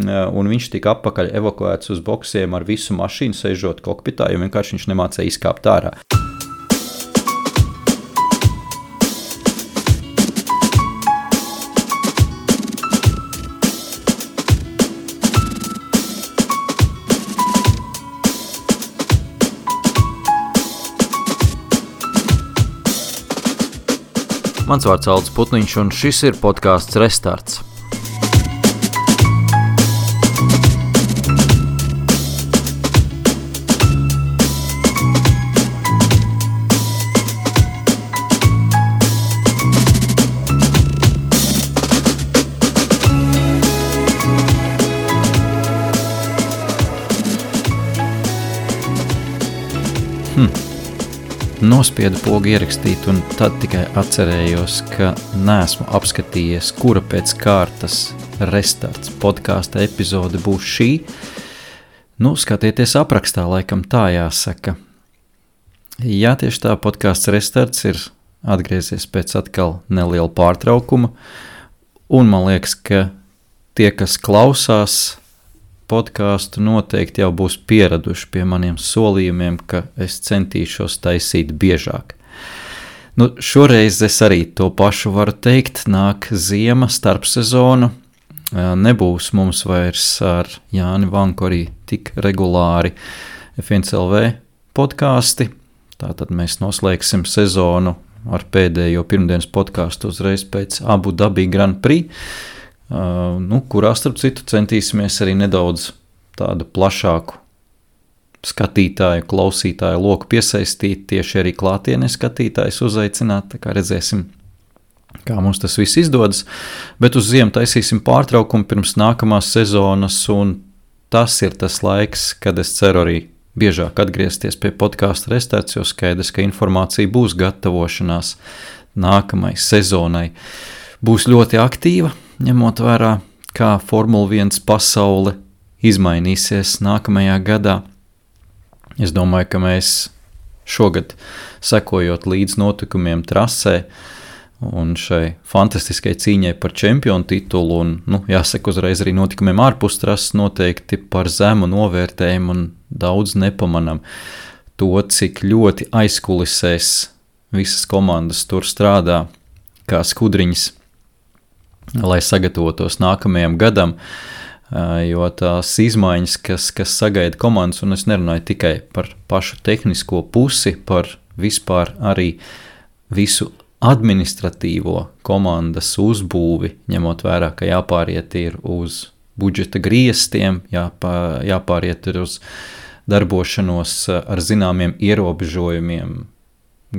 un viņš tika atpakaļ evakuēts uz boksiem ar visu mašīnu, sēžot kokpitā, jo vienkārši viņš nemācēja izkāpt ārā. Mans vārds Aldis Putniņš, un šis ir podcasts Restarts. Nospiedu pogu ierakstīt, un tad tikai atcerējos, ka neesmu apskatījies, kura pēc kārtas Restarts podkāsta epizode būs šī. Skatieties aprakstā, laikam tā jāsaka. Jā, tieši tā, podkāsts Restarts ir atgriezies pēc atkal neliela pārtraukuma, un man liekas, ka tie, kas klausās podkāstu, noteikti jau būs pieraduši pie maniem solījumiem, ka es centīšos taisīt biežāk. Šoreiz es arī to pašu varu teikt, nāk ziema, starpsezona, nebūs mums vairs ar Jāni Vanku arī tik regulāri F1LV podkāsti, tātad mēs noslēgsim sezonu ar pēdējo pirmdienas podkāstu uzreiz pēc Abu Dhabi Grand Prix, kurā starp citu centīsimies arī nedaudz tādu plašāku skatītāju, klausītāju loku piesaistīt, tieši arī klātienē skatītājus uzaicināt, tā kā redzēsim, kā mums tas viss izdodas, bet uz ziemu taisīsim pārtraukumu pirms nākamās sezonas, un tas ir tas laiks, kad es ceru arī biežāk atgriezties pie podkāsta Restarts, jo skaidrs, ka informācija būs gatavošanās nākamai sezonai. Būs ļoti aktīva, ņemot vērā, kā Formula 1 pasaule izmainīsies nākamajā gadā. Es domāju, ka mēs šogad, sekojot līdz notikumiem trasē un šai fantastiskai cīņai par čempionu titulu, un, jāsaka uzreiz arī notikumiem ārpus trases, noteikti par zemu novērtējumu un daudz nepamanam to, cik ļoti aizkulisēs visas komandas tur strādā kā skudriņas, lai sagatavotos nākamajam gadam, jo tās izmaiņas, kas sagaida komandas, un es nerunāju tikai par pašu tehnisko pusi, par vispār arī visu administratīvo komandas uzbūvi, ņemot vērā, ka jāpāriet ir uz budžeta griestiem, jāpāriet ir uz darbošanos ar zināmiem ierobežojumiem,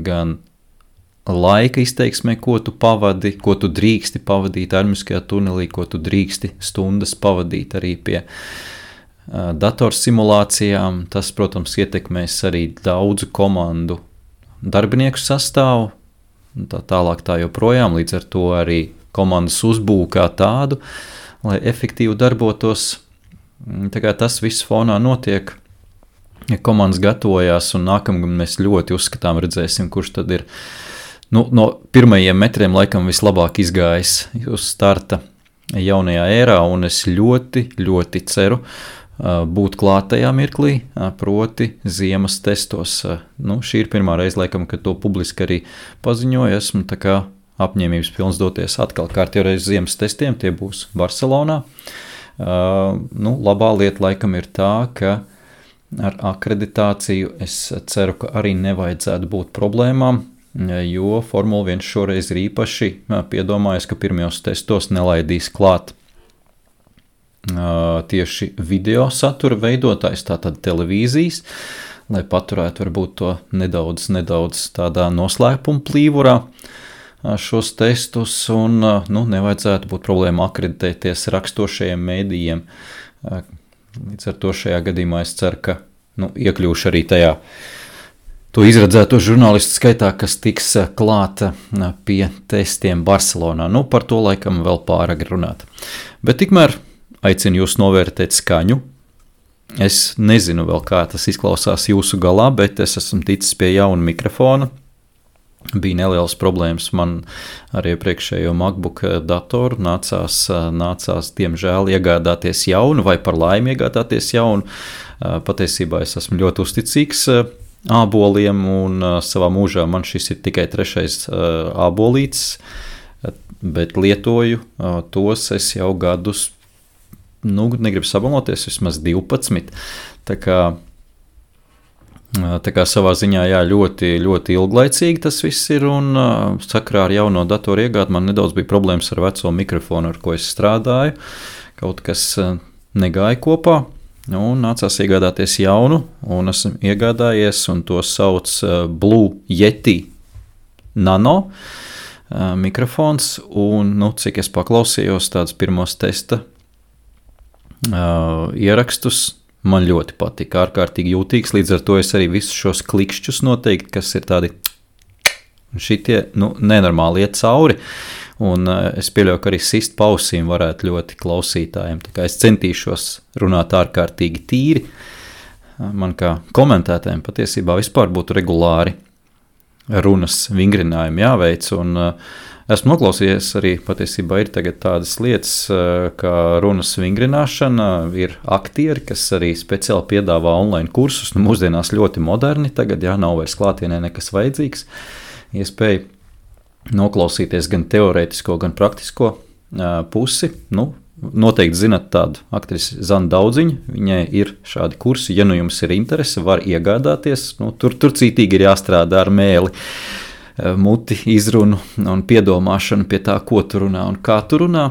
gan laika izteiksmē, ko tu pavadi, ko tu drīksti pavadīt armiskajā tunelī, ko tu drīksti stundas pavadīt arī pie datorsimulācijām. Tas, protams, ietekmēs arī daudzu komandu darbinieku sastāvu, tā tālāk tā joprojām, līdz ar to arī komandas uzbūvu kā tādu, lai efektīvi darbotos. Tā kā tas viss fonā notiek, ja komandas gatavojās, un nākamgad mēs ļoti uzskatām, redzēsim, kurš tad ir no pirmajiem metriem laikam vislabāk izgājis uz starta jaunajā ērā, un es ļoti, ļoti ceru būt klāt tajā mirklī, proti ziemas testos. Šī ir pirmā reize, laikam, kad to publiski arī paziņoju, esmu tā kā apņēmības pilns doties atkal kārtjoreiz ziemas testiem, tie būs Barcelonā. Labā lieta laikam ir tā, ka ar akreditāciju es ceru, ka arī nevajadzētu būt problēmām, jo Formula 1 šoreiz ir īpaši piedomājies, ka pirmajos testos nelaidīs klāt tieši video satura veidotājs, tātad televīzijas, lai paturētu varbūt to nedaudz tādā noslēpuma plīvurā šos testus, un nevajadzētu būt problēma akreditēties rakstošajiem mēdījiem. Līdz ar to šajā gadījumā es ceru, ka iekļūšu arī tajā to izredzēto žurnālistu skaitā, kas tiks klāta pie testiem Barcelonā. Par to laikam vēl pāragri runāt. Bet tikmēr aicinu jūs novērtēt skaņu. Es nezinu vēl, kā tas izklausās jūsu galā, bet es esmu ticis pie jauna mikrofona. bija nelielas problēmas. Man ar iepriekšējo MacBook datoru nācās diemžēl iegādāties jaunu vai par laimi iegādāties jaunu. Patiesībā es esmu ļoti uzticīgs āboliem un savā mūžā man šis ir tikai 3. ābolītis, bet lietoju tos es jau gadus, negribu sabaloties, vismaz 12. Tā kā savā ziņā ļoti, ļoti ilglaicīgi tas viss ir, un sakrā ar jauno datoru iegādi man nedaudz bija problēmas ar veco mikrofonu, ar ko es strādāju. Kaut kas negāja kopā, un nācās iegādāties jaunu, un esmu iegādājies, un to sauc Blue Yeti Nano mikrofons, un, cik es paklausījos tādus pirmos testa ierakstus, man ļoti patika, ārkārtīgi jūtīgs, līdz ar to es arī visus šos klikšķus noteikti, kas ir tādi šitie, nenormāli iet cauri, un es pieļauju, ka arī sist pausīm varētu ļoti klausītājiem, tā kā es centīšos runāt ārkārtīgi tīri, man kā komentētājiem patiesībā vispār būtu regulāri runas vingrinājumi jāveic, un esmu noklausījies arī patiesībā ir tagad tādas lietas, kā runas vingrināšana, ir aktieri, kas arī speciāli piedāvā online kursus, mūsdienās ļoti moderni, tagad nav vairs klātienē nekas vajadzīgs, iespēja noklausīties gan teorētisko, gan praktisko pusi, noteikti zinat tādu aktrisi Zanu Daudziņu, viņai ir šādi kursi, ja jums ir interese, var iegādāties, tur cītīgi ir jāstrādā ar mēli, muti, izrunu un piedomāšanu pie tā, ko tu runā un kā tu runā,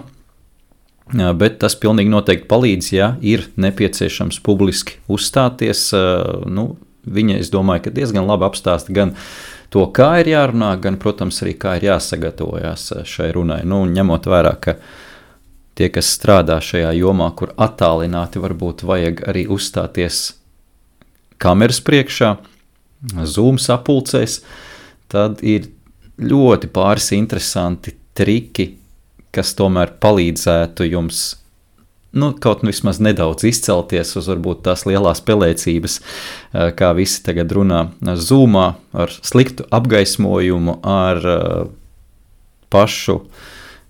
bet tas pilnīgi noteikti palīdz, ja ir nepieciešams publiski uzstāties, viņa, es domāju, ka diezgan labi apstāsta gan to, kā ir jārunā, gan, protams, arī kā ir jāsagatavojās šai runai, ņemot vērā, ka tie, kas strādā šajā jomā, kur attālināti varbūt vajag arī uzstāties kameras priekšā, Zoom sapulcēs, tad ir ļoti pāris interesanti triki, kas tomēr palīdzētu jums kaut vismaz nedaudz izcelties uz varbūt tās lielās pelēcības, kā visi tagad runā Zoomā, ar sliktu apgaismojumu, ar pašu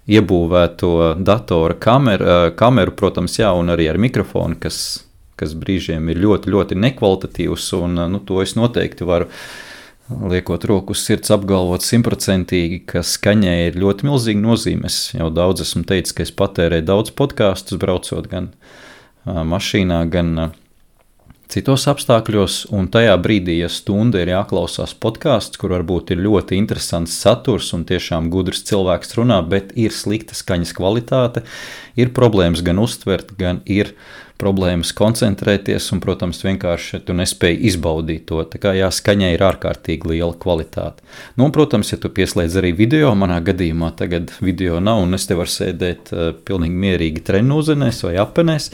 iebūvēto datora kameru, protams, un arī ar mikrofonu, kas brīžiem ir ļoti, ļoti nekvalitatīvs, un to es noteikti varu liekot roku uz sirds apgalvot 100%, ka skaņai ir ļoti milzīga nozīme. Es jau daudz esmu teicis, ka es patērēju daudz podkastus, braucot gan mašīnā, gan citos apstākļos, un tajā brīdī, ja stunda ir jāklausās podkasts, kur varbūt ir ļoti interesants saturs un tiešām gudrs cilvēks runā, bet ir slikta skaņas kvalitāte, ir problēmas gan uztvert, gan ir problēmas koncentrēties, un, protams, vienkārši tu nespēji izbaudīt to. Tā kā skaņai ir ārkārtīgi liela kvalitāte. Un, protams, ja tu pieslēdz arī video, manā gadījumā tagad video nav, un es te varu sēdēt pilnīgi mierīgi trenūzenēs vai apenēs,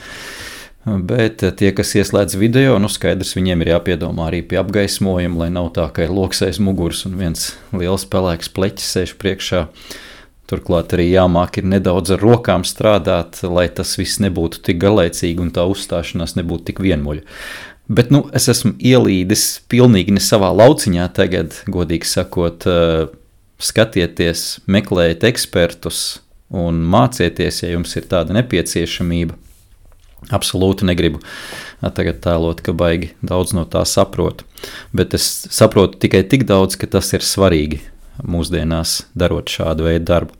bet tie, kas ieslēdz video, skaidrs, viņiem ir jāpiedomā arī pie apgaismojuma, lai nav tā, ka ir loks aiz muguras un viens liels pelēks pleķis sēž priekšā. Turklāt arī jāmāk ir nedaudz ar rokām strādāt, lai tas viss nebūtu tik garlaicīgi un tā uzstāšanās nebūtu tik vienmuļa. Bet, es esmu ielīdis pilnīgi ne savā lauciņā tagad, godīgi sakot, skatieties, meklējiet ekspertus un mācieties, ja jums ir tāda nepieciešamība. Absolūti negribu tagad tēlot, ka baigi daudz no tā saprotu, bet es saprotu tikai tik daudz, ka tas ir svarīgi mūsdienās darot šādu veidu darbu.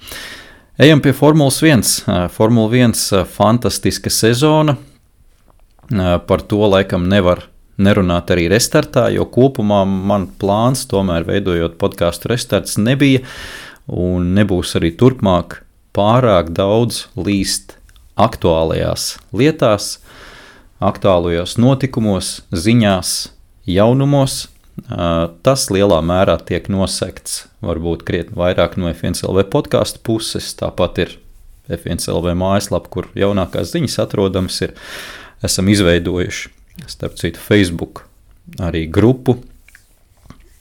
Ejam pie Formulas 1. Formula 1 fantastiska sezona. Par to laikam nevar nerunāt arī restartā, jo kopumā man plāns, tomēr veidojot podcastu restarts, nebija un nebūs arī turpmāk pārāk daudz līst aktuālajās lietās, aktuālajos notikumos, ziņās, jaunumos. Tas lielā mērā tiek nosekts varbūt krietni vairāk no F1LV podcastu puses, tāpat ir F1LV mājaslapa, kur jaunākās ziņas atrodamas ir, esam izveidojuši, starp citu, Facebook arī grupu,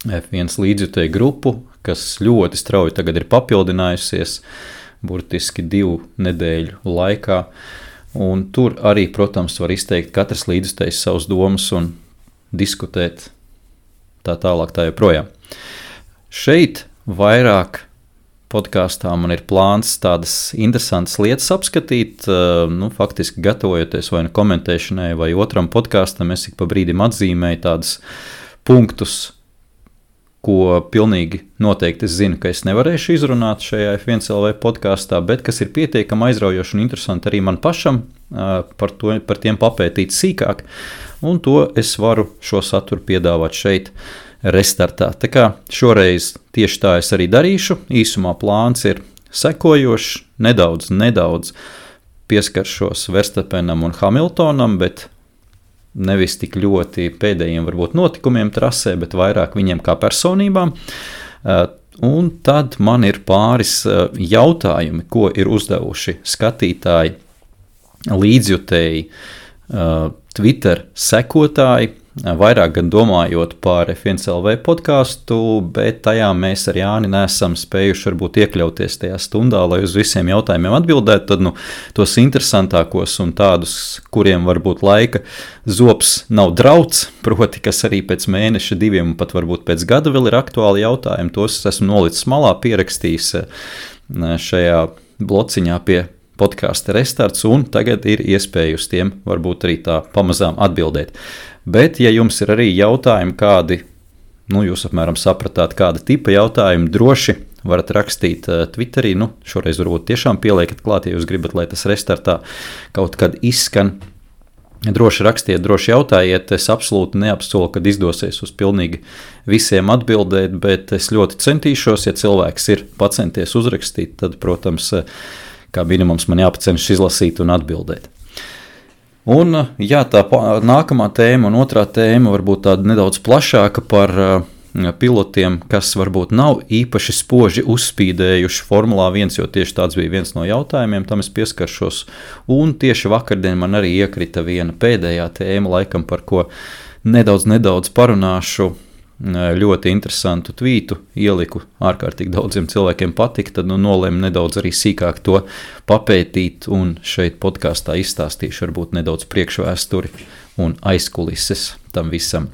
F1 līdzjutēju grupu, kas ļoti strauji tagad ir papildinājusies, burtiski 2 nedēļu laikā, un tur arī, protams, var izteikt katrs līdzjutējs savus domas un diskutēt tā tālāk tā joprojām. Šeit vairāk podkāstā man ir plāns tādas interesantas lietas apskatīt, faktiski gatavojoties vai komentēšanai vai otram podkāstam, es ik pa brīdim atzīmēju tādus punktus, ko pilnīgi noteikti es zinu, ka es nevarēšu izrunāt šajā F1LV podkāstā, bet kas ir pietiekami aizraujoši un interesanti arī man pašam par tiem papētīt sīkāk, un to es varu šo saturu piedāvāt šeit restartā. Tā kā šoreiz tieši tā es arī darīšu, īsumā plāns ir sekojošs, nedaudz pieskaršos Verstappenam un Hamiltonam, bet nevis tik ļoti pēdējiem varbūt notikumiem trasē, bet vairāk viņiem kā personībām. Un tad man ir pāris jautājumi, ko ir uzdevuši skatītāji, līdzjutēji, Twitter sekotāji, vairāk gan domājot par F1LV podkāstu, bet tajā mēs ar Jāni neesam spējuši varbūt iekļauties tajā stundā, lai uz visiem jautājumiem atbildētu, tad tos interesantākos un tādus, kuriem varbūt laika zops nav drauds, proti, kas arī pēc mēneša, 2 un pat varbūt pēc gada vēl ir aktuāli jautājumi, tos esmu nolicis malā, pierakstījis šajā blociņā pie podkāsta restarts, un tagad ir iespēja uz tiem varbūt arī tā pamazām atbildēt. Bet, ja jums ir arī jautājumi kādi, jūs apmēram sapratāt, kāda tipa jautājumi, droši varat rakstīt Twitterī, šoreiz varbūt tiešām pieliekat klāt, ja jūs gribat, lai tas restartā kaut kad izskan. Droši rakstiet, droši jautājiet, es absolūti neapsolu, kad izdosies uz pilnīgi visiem atbildēt, bet es ļoti centīšos, ja cilvēks ir pacenties uzrakstīt, tad, protams, kā minimums man jāpacenšas izlasīt un atbildēt. Un jā, tā nākamā tēma un otrā tēma varbūt tāda nedaudz plašāka par pilotiem, kas varbūt nav īpaši spoži uzspīdējuši Formulā 1, jo tieši tāds bija viens no jautājumiem, tam es pieskaršos. Un tieši vakardien man arī iekrita viena pēdējā tēma, laikam par ko nedaudz parunāšu. Ļoti interesantu tvītu ieliku, ārkārtīgi daudziem cilvēkiem patika, tad nolēmu nedaudz arī sīkāk to papētīt un šeit podkāstā izstāstīšu varbūt nedaudz priekšvēsturi un aizkulises tam visam.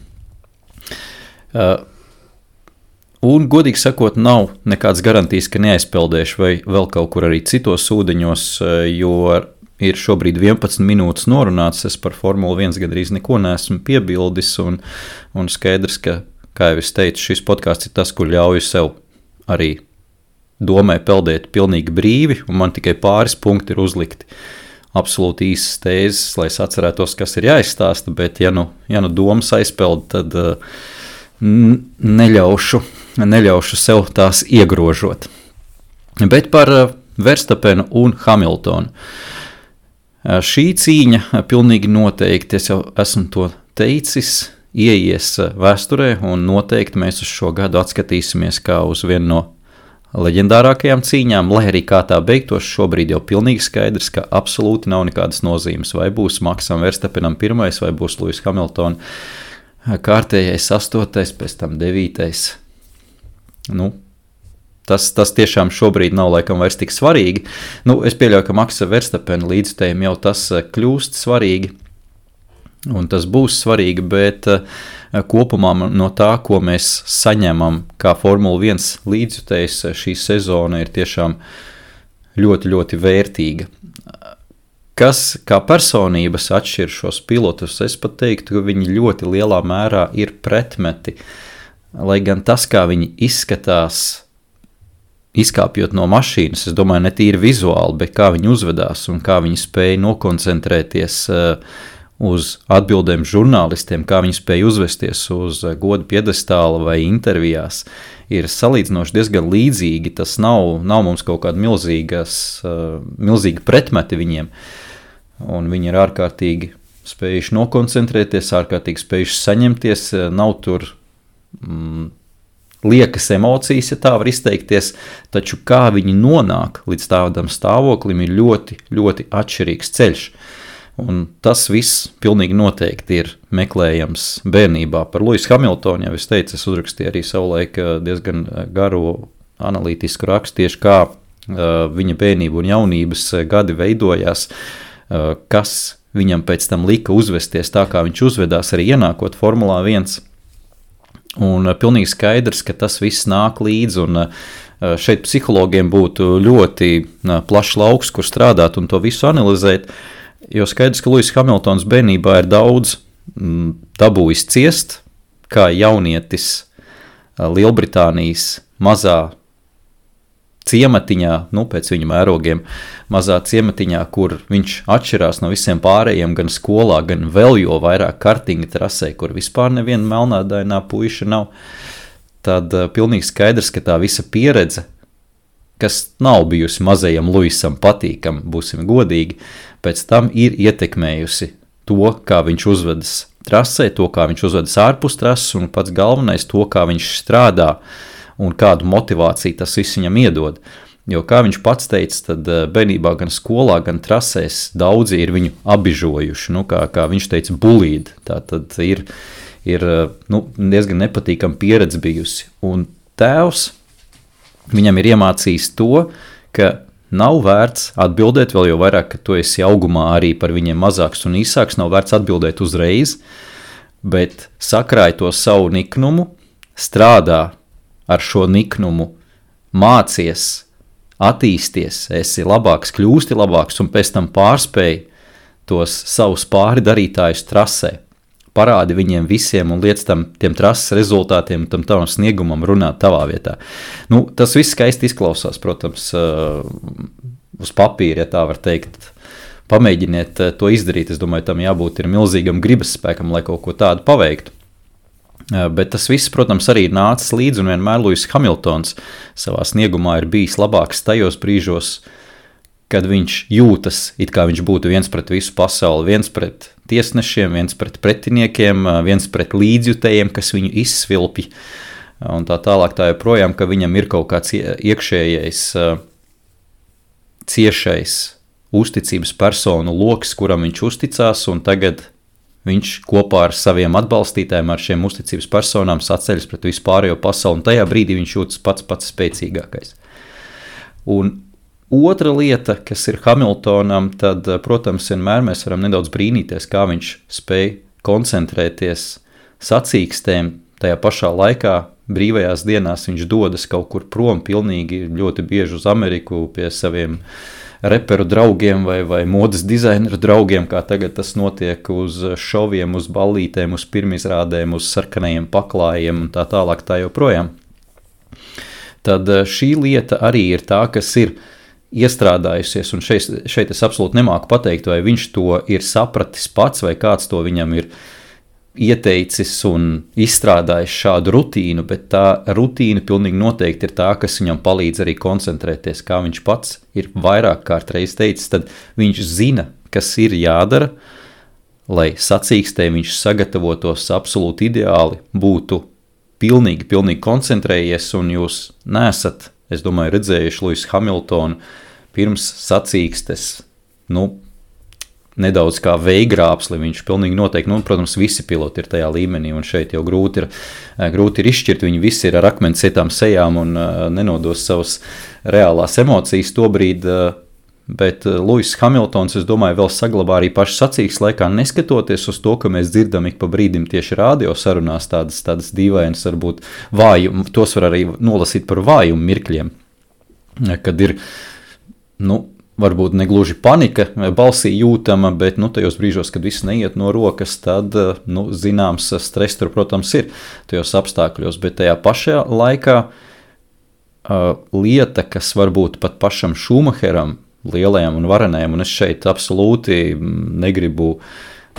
Un, godīgi sakot, nav nekāds garantijas, ka neaizpeldēšu vai vēl kaut kur arī citos ūdeņos, jo ir šobrīd 11 minūtes norunāts, es par Formulu 1 gandrīz neko neesmu piebildis un skaidrs, ka kā jau es teicu, šis podkāsts ir tas, kur ļauju sev arī domai peldēt pilnīgi brīvi, un man tikai pāris punkti ir uzlikti absolūti īsas tēzes, lai es atcerētos, kas ir jāizstāsta, bet ja nu domas aizpeld, tad neļaušu sev tās iegrožot. Bet par Verstappenu un Hamiltonu. Šī cīņa pilnīgi noteikti, es jau esmu to teicis, ieies vēsturē, un noteikti mēs uz šo gadu atskatīsimies kā uz vienu no leģendārākajām cīņām, lai arī kā tā beigtos, šobrīd jau pilnīgi skaidrs, ka absolūti nav nekādas nozīmes, vai būs Maksam Verstappenam 1, vai būs Lewis Hamilton kārtējais 8, pēc tam 9. Tas tiešām šobrīd nav laikam vairs tik svarīgi. Es pieļauju, ka Maksa Verstappena līdzstējiem jau tas kļūst svarīgi, un tas būs svarīgi, bet kopumā no tā, ko mēs saņemam kā Formula 1 līdzjutējs, šī sezona ir tiešām ļoti, ļoti vērtīga. Kas kā personības atšķir šos pilotus, es pat teiktu, ka viņi ļoti lielā mērā ir pretmeti, lai gan tas, kā viņi izskatās, izkāpjot no mašīnas, es domāju, ne tīri vizuāli, bet kā viņi uzvedās un kā viņi spēja nokoncentrēties uz atbildēm žurnālistiem, kā viņi spēja uzvesties uz goda piedestāla vai intervijās, ir salīdzinoši diezgan līdzīgi. Tas nav mums kaut kāda milzīga pretmeti viņiem, un viņi ir ārkārtīgi spējuši nokoncentrēties, ārkārtīgi spējuši saņemties, nav tur liekas emocijas, ja tā var izteikties, taču kā viņi nonāk līdz tādam stāvoklim ir ļoti, ļoti atšķirīgs ceļš. Un tas viss pilnīgi noteikti ir meklējams bērnībā. Par Lewisu Hamiltonu, jau es teicu, es uzrakstīju arī savulaik diezgan garu analītisku rakstu, tieši kā viņa bērnība un jaunības gadi veidojās, kas viņam pēc tam lika uzvesties tā, kā viņš uzvedās arī ienākot Formulā 1. Un pilnīgi skaidrs, ka tas viss nāk līdzi, un šeit psihologiem būtu ļoti plašs lauks, kur strādāt un to visu analizēt, jo skaidrs, ka Luis Hamiltons bērnībā ir daudz dabūjis ciest, kā jaunietis Lielbritānijas mazā ciematiņā, pēc viņa mērogiem, mazā ciematiņā, kur viņš atšķirās no visiem pārējiem gan skolā, gan vēl jo vairāk kartinga trasē, kur vispār neviena melnādainā puiša nav, tad pilnīgi skaidrs, ka tā visa pieredze, kas nav bijusi mazajam Luisam patīkam, būsim godīgi, pēc tam ir ietekmējusi to, kā viņš uzvedas trasē, to, kā viņš uzvedas ārpus trases, un pats galvenais to, kā viņš strādā, un kādu motivāciju tas viss viņam iedod. Jo, kā viņš pats teica, tad bērnībā gan skolā, gan trasēs daudzi ir viņu abižojuši, kā viņš teica, bulīdi. Tā tad ir diezgan nepatīkama pieredze bijusi. Un tēvs viņam ir iemācījis to, ka nav vērts atbildēt, vēl jau vairāk, ka tu esi augumā arī par viņiem mazāks un īsāks, nav vērts atbildēt uzreiz, bet sakrāj to savu niknumu, strādā ar šo niknumu, mācies, attīsties, esi labāks, kļūsti labāks un pēc tam pārspēj tos savus pāri darītājus trasē. Parādi viņiem visiem un liec tiem trases rezultātiem, tam tavam sniegumam runāt tavā vietā. Tas viss skaisti izklausās, protams, uz papīra, ja tā var teikt. Pamēģiniet to izdarīt, es domāju, tam jābūt ir milzīgam gribas spēkam, lai kaut ko tādu paveiktu. Bet tas viss, protams, arī ir nācis līdzi, un vienmēr Luis Hamiltons savā sniegumā ir bijis labāks tajos brīžos, kad viņš jūtas, it kā viņš būtu viens pret visu pasauli, viens pret tiesnešiem, viens pret pretiniekiem, viens pret līdzjutējiem, kas viņu izsvilpj, un tā tālāk tā joprojām, ka viņam ir kaut kāds iekšējais, ciešais uzticības personu loks, kuram viņš uzticās, un tagad viņš kopā ar saviem atbalstītājiem, ar šiem uzticības personām saceļas pret visu pārējo pasauli, un tajā brīdī viņš jūtas pats spēcīgākais. Un otra lieta, kas ir Hamiltonam, tad, protams, vienmēr mēs varam nedaudz brīnīties, kā viņš spēj koncentrēties sacīkstēm, tajā pašā laikā brīvajās dienās viņš dodas kaut kur prom pilnīgi ļoti bieži uz Ameriku pie saviem reperu draugiem vai modes dizaineru draugiem, kā tagad tas notiek uz šoviem, uz ballītēm, uz pirmizrādēm, uz sarkanajiem paklājiem un tā tālāk tā joprojām. Tad šī lieta arī ir tā, kas ir iestrādājusies, un šeit es absolūti nemāku pateikt, vai viņš to ir sapratis pats, vai kāds to viņam ir ieteicis un izstrādājis šādu rutīnu, bet tā rutīna pilnīgi noteikti ir tā, kas viņam palīdz arī koncentrēties, kā viņš pats ir vairāk kārtreiz teicis, tad viņš zina, kas ir jādara, lai sacīkstē viņš sagatavotos absolūti ideāli, būtu pilnīgi koncentrējies, un jūs nesat, es domāju, redzējuši Luisu Hamiltonu pirms sacīkstes, nedaudz kā veigrāpsli, viņš pilnīgi noteikti, protams, visi piloti ir tajā līmenī, un šeit jau grūti ir izšķirt, viņi visi ir ar akmens cietām sejām un nenodos savas reālās emocijas tobrīd, bet Luis Hamiltons, es domāju, vēl saglabā arī pašu sacīkstes laikā, neskatoties uz to, ka mēs dzirdam ik pa brīdim tieši radio sarunās tādas dīvainas, varbūt vājumu, tos var arī nolasīt par vājumu mirkļiem, kad ir, varbūt negluži panika balsī jūtama, bet tajos brīžos, kad viss neiet no rokas, tad zināms stress tur, protams, ir tajos apstākļos, bet tajā pašā laikā lieta, kas varbūt pat pašam Šumacheram, lielajam un varenajam, un es šeit absolūti negribu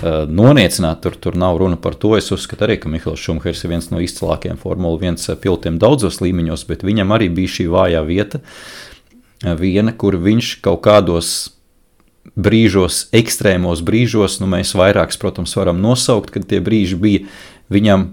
noniecināt, tur nav runa par to, es uzskatu arī, ka Mihails Šumahers ir viens no izcilākajiem Formula 1 pilotiem daudzos līmeņos, bet viņam arī bija šī vājā vieta, viena, kur viņš kaut kādos brīžos, ekstrēmos brīžos, mēs vairākus, protams, varam nosaukt, kad tie brīži bija, viņam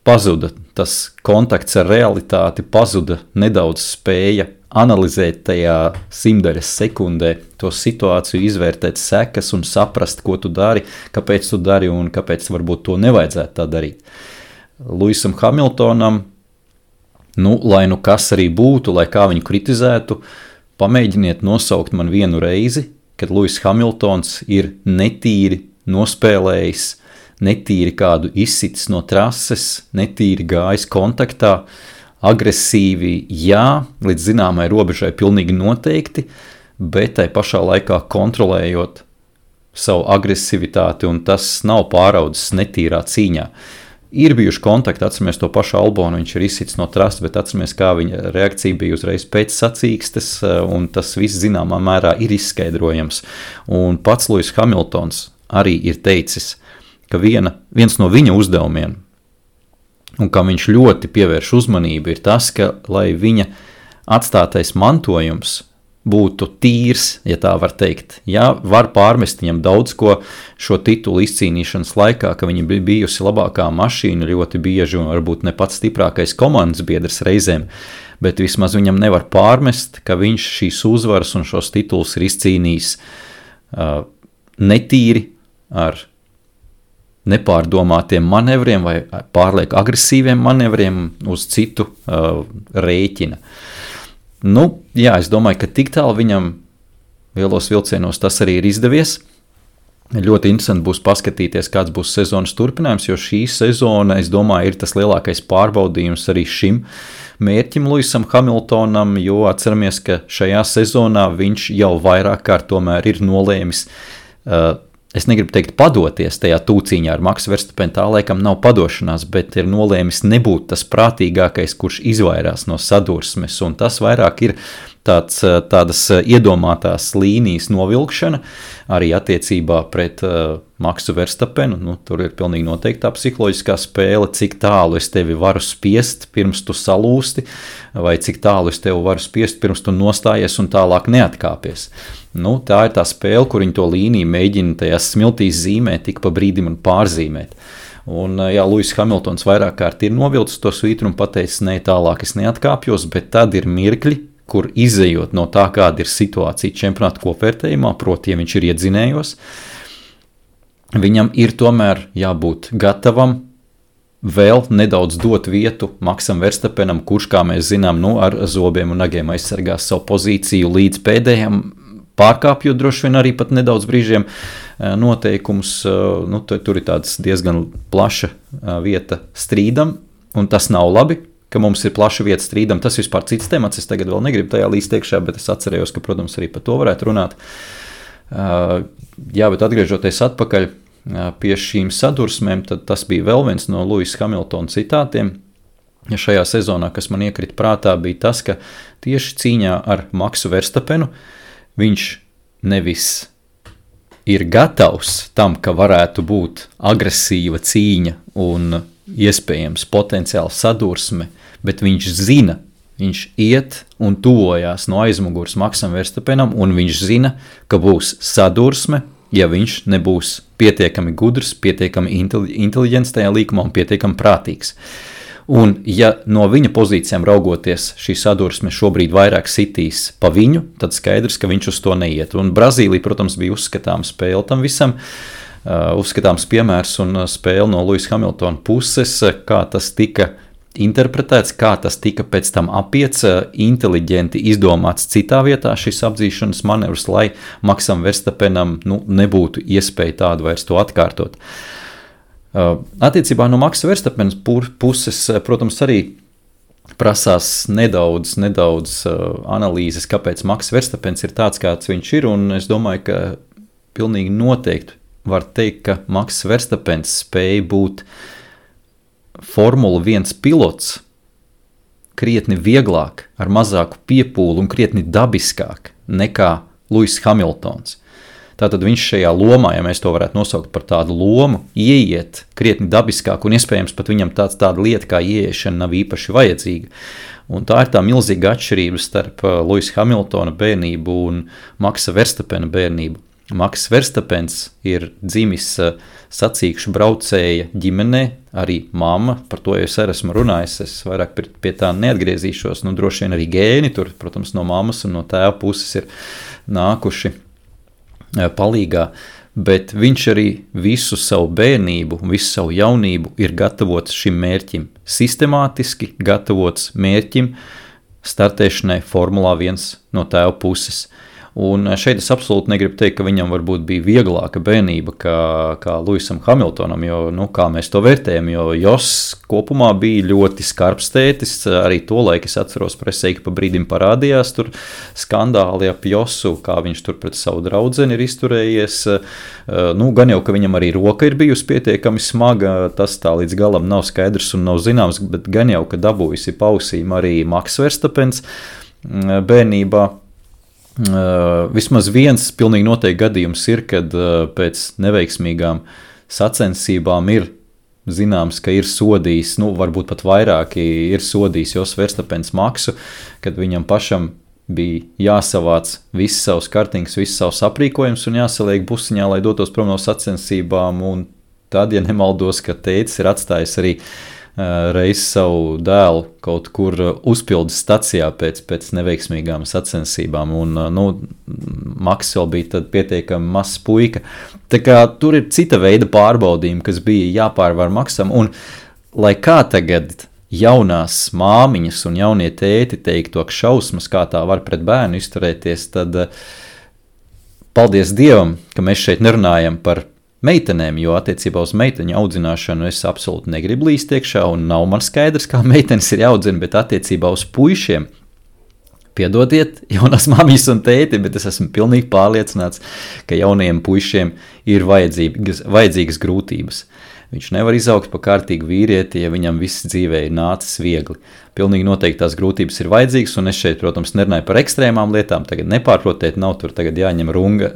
pazuda tas kontakts ar realitāti, pazuda nedaudz spēja analizēt tajā simtaļas sekundē to situāciju, izvērtēt sekas un saprast, ko tu dari, kāpēc tu dari un kāpēc varbūt to nevajadzētu tā darīt. Luisam Hamiltonam, lai kas arī būtu, lai kā viņu kritizētu, pamēģiniet nosaukt man vienu reizi, kad Luis Hamiltons ir netīri nospēlējis netīri kādu izsitis no trases, netīri gājis kontaktā, agresīvi, jā, līdz zināmai robežai pilnīgi noteikti, bet tai pašā laikā kontrolējot savu agresivitāti, un tas nav pāraudzis netīrā cīņā. Ir bijuši kontakti, atceramies to pašu Albonu, viņš ir izsits no trases, bet atceramies, kā viņa reakcija bija uzreiz pēc sacīkstes, un tas viss zināmā mērā ir izskaidrojams. Un pats Lewis Hamiltons arī ir teicis, ka viens no viņa uzdevumiem, un kam viņš ļoti pievērš uzmanību, ir tas, ka, lai viņa atstātais mantojums būtu tīrs, ja tā var teikt. Jā, var pārmest viņam daudz ko šo titulu izcīnīšanas laikā, ka viņa bija bijusi labākā mašīna ļoti bieži un varbūt ne pats stiprākais komandas biedrs reizēm, bet vismaz viņam nevar pārmest, ka viņš šīs uzvaras un šos titulus ir izcīnījis netīri ar nepārdomātiem manevriem vai pārlieku agresīviem manevriem uz citu rēķina. Nu, jā, es domāju, ka tik tālu viņam lielos vilcienos tas arī ir izdevies. Ļoti interesanti būs paskatīties, kāds būs sezonas turpinājums, jo šī sezona, es domāju, ir tas lielākais pārbaudījums arī šim mērķim Lewisam Hamiltonam, jo atceramies, ka šajā sezonā viņš jau vairāk kārt tomēr ir nolēmis es negribu teikt padoties tajā tūcīņā ar Maksu Verstapenu, tā laikam nav padošanās, bet ir nolēmis nebūt tas prātīgākais, kurš izvairās no sadursmes, un tas vairāk ir tādas iedomātās līnijas novilkšana, arī attiecībā pret Maksu Verstapenu. Nu, tur ir pilnīgi noteikti tā psiholoģiskā spēle, cik tālu es tevi varu spiest, pirms tu salūsti, vai cik tālu es tevi varu spiest, pirms tu nostājies un tālāk neatkāpies. Nu, tā ir tā spēle, kur viņi to līniju mēģina tajās smiltīs zīmēt, tik pa brīdim un pārzīmēt. Un, jā, Lewis Hamiltons vairāk kārt ir novilcis to svītru un pateicis, ne, tālāk es neatkāpjos, bet tad ir mirkļi, kur izejot no tā, kāda ir situācija čempionāta kopvērtējumā, proti, ja viņš ir iedzinējos, viņam ir tomēr jābūt gatavam vēl nedaudz dot vietu Maksam Verstapenam, kurš, kā mēs zinām, ar zobiem un nagiem aizsargās savu pozīciju līdz pēdējiem, pārkāpjot droši vien arī pat nedaudz brīžiem noteikumus. Nu, tur ir tāds diezgan plaša vieta strīdam, un tas nav labi, ka mums ir plaša vieta strīdam. Tas vispār cits temats, es tagad vēl negribu tajā līst iekšā, bet es atcerējos, ka, protams, arī par to varētu runāt. Jā, bet atgriežoties atpakaļ pie šīm sadursmēm, tad tas bija vēl viens no Lewis Hamiltona citātiem. Ja šajā sezonā, kas man iekrita prātā, bija tas, ka tieši cīņā ar Maksu Verstapenu viņš nevis ir gatavs tam, ka varētu būt agresīva cīņa un iespējams potenciāli sadursme, bet viņš zina, viņš iet un tuvojās no aizmugures Maksam Verstapenam, un viņš zina, ka būs sadursme, ja viņš nebūs pietiekami gudrs, pietiekami inteliģents tajā līkumā un pietiekami prātīgs. Un ja no viņa pozīcijām raugoties šī sadursme šobrīd vairāk sitīs pa viņu, tad skaidrs, ka viņš uz to neiet. Un Brazīlija, protams, bija uzskatāma spēle tam visam, uzskatāms piemērs un spēle no Lewis Hamiltona puses, kā tas tika interpretēts, kā tas tika pēc tam apiets, inteliģenti izdomāts citā vietā šis apdzīšanas manevrs, lai Maksam Verstapenam nebūtu iespēja tādu vairs to atkārtot. Attiecībā no Maksa Verstapena puses, protams, arī prasās nedaudz analīzes, kāpēc Maks Verstapens ir tāds, kāds viņš ir, un es domāju, ka pilnīgi noteikti var teikt, ka Maks Verstapens spēja būt Formula 1 pilots krietni vieglāk, ar mazāku piepūli un krietni dabiskāk nekā Lewis Hamiltons. Tātad viņš šajā lomā, ja mēs to varētu nosaukt par tādu lomu, ieiet krietni dabiskāk, un iespējams pat viņam tāda lieta kā ieiešana nav īpaši vajadzīga. Un tā ir tā milzīga atšķirība starp Lewis Hamiltona bērnību un Maksa Verstapena bērnību. Maks Verstapens ir dzimis sacīkšu braucēja ģimenē, arī mamma, par to jau es arī esmu runājis, es vairāk pie tā neatgriezīšos, droši vien arī gēni, tur, protams, no mammas un no tēva puses ir nākuši palīgā, bet viņš arī visu savu bērnību un visu savu jaunību ir gatavots šim mērķim, sistemātiski gatavots mērķim startēšanai Formulā 1 no tēva puses. Un šeit es absolūti negribu teikt, ka viņam varbūt bija vieglāka bērnība kā Lewisam Hamiltonam, jo, kā mēs to vērtējam, jo Joss kopumā bija ļoti skarbs tētis, arī to laiku es atceros presē, ka pa brīdim parādījās tur skandāli ap Jossu, kā viņš tur pret savu draudzeni ir izturējies, gan jau, ka viņam arī roka ir bijusi pietiekami smaga, tas tā līdz galam nav skaidrs un nav zināms, bet gan jau, ka dabūjusi pausīm arī Maks Verstapens bērnībā. Vismaz viens pilnīgi noteikti gadījums ir, kad pēc neveiksmīgām sacensībām ir zināms, ka ir sodījis, varbūt pat vairāki ir sodījis Jos Verstapens Maksu, kad viņam pašam bija jāsavāc viss savs kartings, viss savs aprīkojums un jāsaliek busiņā, lai dotos prom no sacensībām, un tad, ja nemaldos, ka tētis ir atstājis arī reiz savu dēlu kaut kur uzpildes stacijā pēc neveiksmīgām sacensībām, un Maks vēl bija tad pietiekami mazs puika. Tā kā tur ir cita veida pārbaudījumi, kas bija jāpārvar Maksam, un lai kā tagad jaunās māmiņas un jaunie tēti teiktu, ak šausmas, kā tā var pret bērnu izturēties, tad paldies Dievam, ka mēs šeit nerunājam par meitenēm, jo attiecībā uz meiteņu audzināšanu es absolūti negribu līst iekšā un nav man skaidrs, kā meitenes ir jāaudzina, bet attiecībā uz puišiem, piedodiet, jaunās māmiņas un tēti, bet es esmu pilnīgi pārliecināts, ka jaunajiem puišiem ir vajadzīgas grūtības. Viņš nevar izaugt pa kārtīgu vīrieti, ja viņam viss dzīvē ir nācis viegli. Pilnīgi noteikti tās grūtības ir vajadzīgas, un es šeit, protams, nerunāju par ekstrēmām lietām, tagad nepārprotiet, nav tur tagad jāņem runga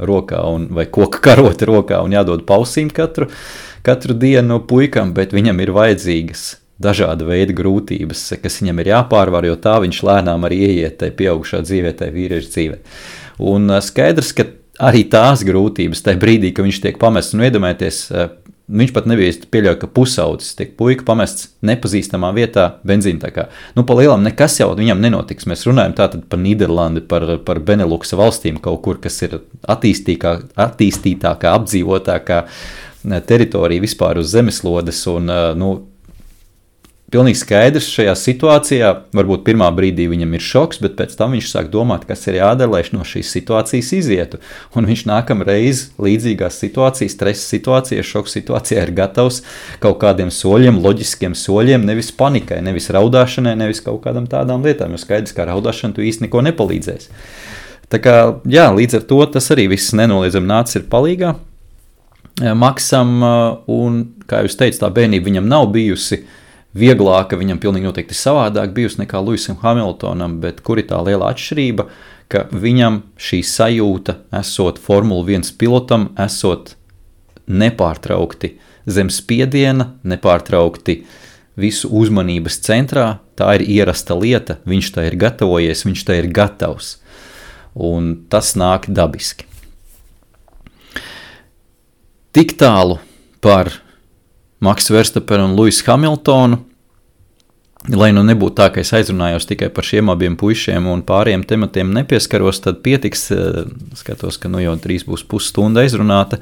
rokā vai koka karoti rokā un jādod pausīm katru dienu puikam, bet viņam ir vajadzīgas dažāda veida grūtības, kas viņam ir jāpārvar, jo tā viņš lēnām arī ieiet tai pieaugušā dzīvē, tai vīrieša dzīvē. Un skaidrs, ka arī tās grūtības tajā brīdī, ka viņš tiek pamests, un iedomājieties, viņš pat nebija pieļauj, ka pusaudzis tiek puika pamests nepazīstamā vietā benzīntakā. Pa lielam nekas jau viņam nenotiks. Mēs runājam tātad par Nīderlandi, par Beneluksa valstīm kaut kur, kas ir attīstītākā, apdzīvotākā teritorija vispār uz zemeslodes, un pilnīgi skaidrs šajā situācijā, varbūt pirmā brīdī viņam ir šoks, bet pēc tam viņš sāk domāt, kas ir jādara, lai no šīs situācijas izietu. Un viņš nākamreiz līdzīgās situācijas, stresa situācijā, šoka situācijā ir gatavs kaut kādiem soļiem, loģiskiem soļiem, nevis panikai, nevis raudāšanai, nevis kaut kādam tādām lietām, jo skaidrs, kā raudāšana tu īsti neko nepalīdzēs. Tā kā, līdz ar to tas arī viss nenoliedzami nācis ir palīgā Maksam, un, kā jūs teicu, tā bērnība viņam nav bijusi vieglāka, viņam pilnīgi noteikti savādāk bijusi nekā Lewisam Hamiltonam, bet kur ir tā liela atšķirība, ka viņam šī sajūta, esot Formula 1 pilotam, esot nepārtraukti zem spiediena, nepārtraukti visu uzmanības centrā, tā ir ierasta lieta, viņš tā ir gatavojies, viņš tā ir gatavs, un tas nāk dabiski. Tik tālu par Maksu Verstapenu un Lewisu Hamiltonu, lai nebūtu tā, ka es aizrunājos tikai par šiem abiem puišiem un pāriem tematiem nepieskaros, tad pietiks, skatos, ka jau drīz būs pusstunda aizrunāta.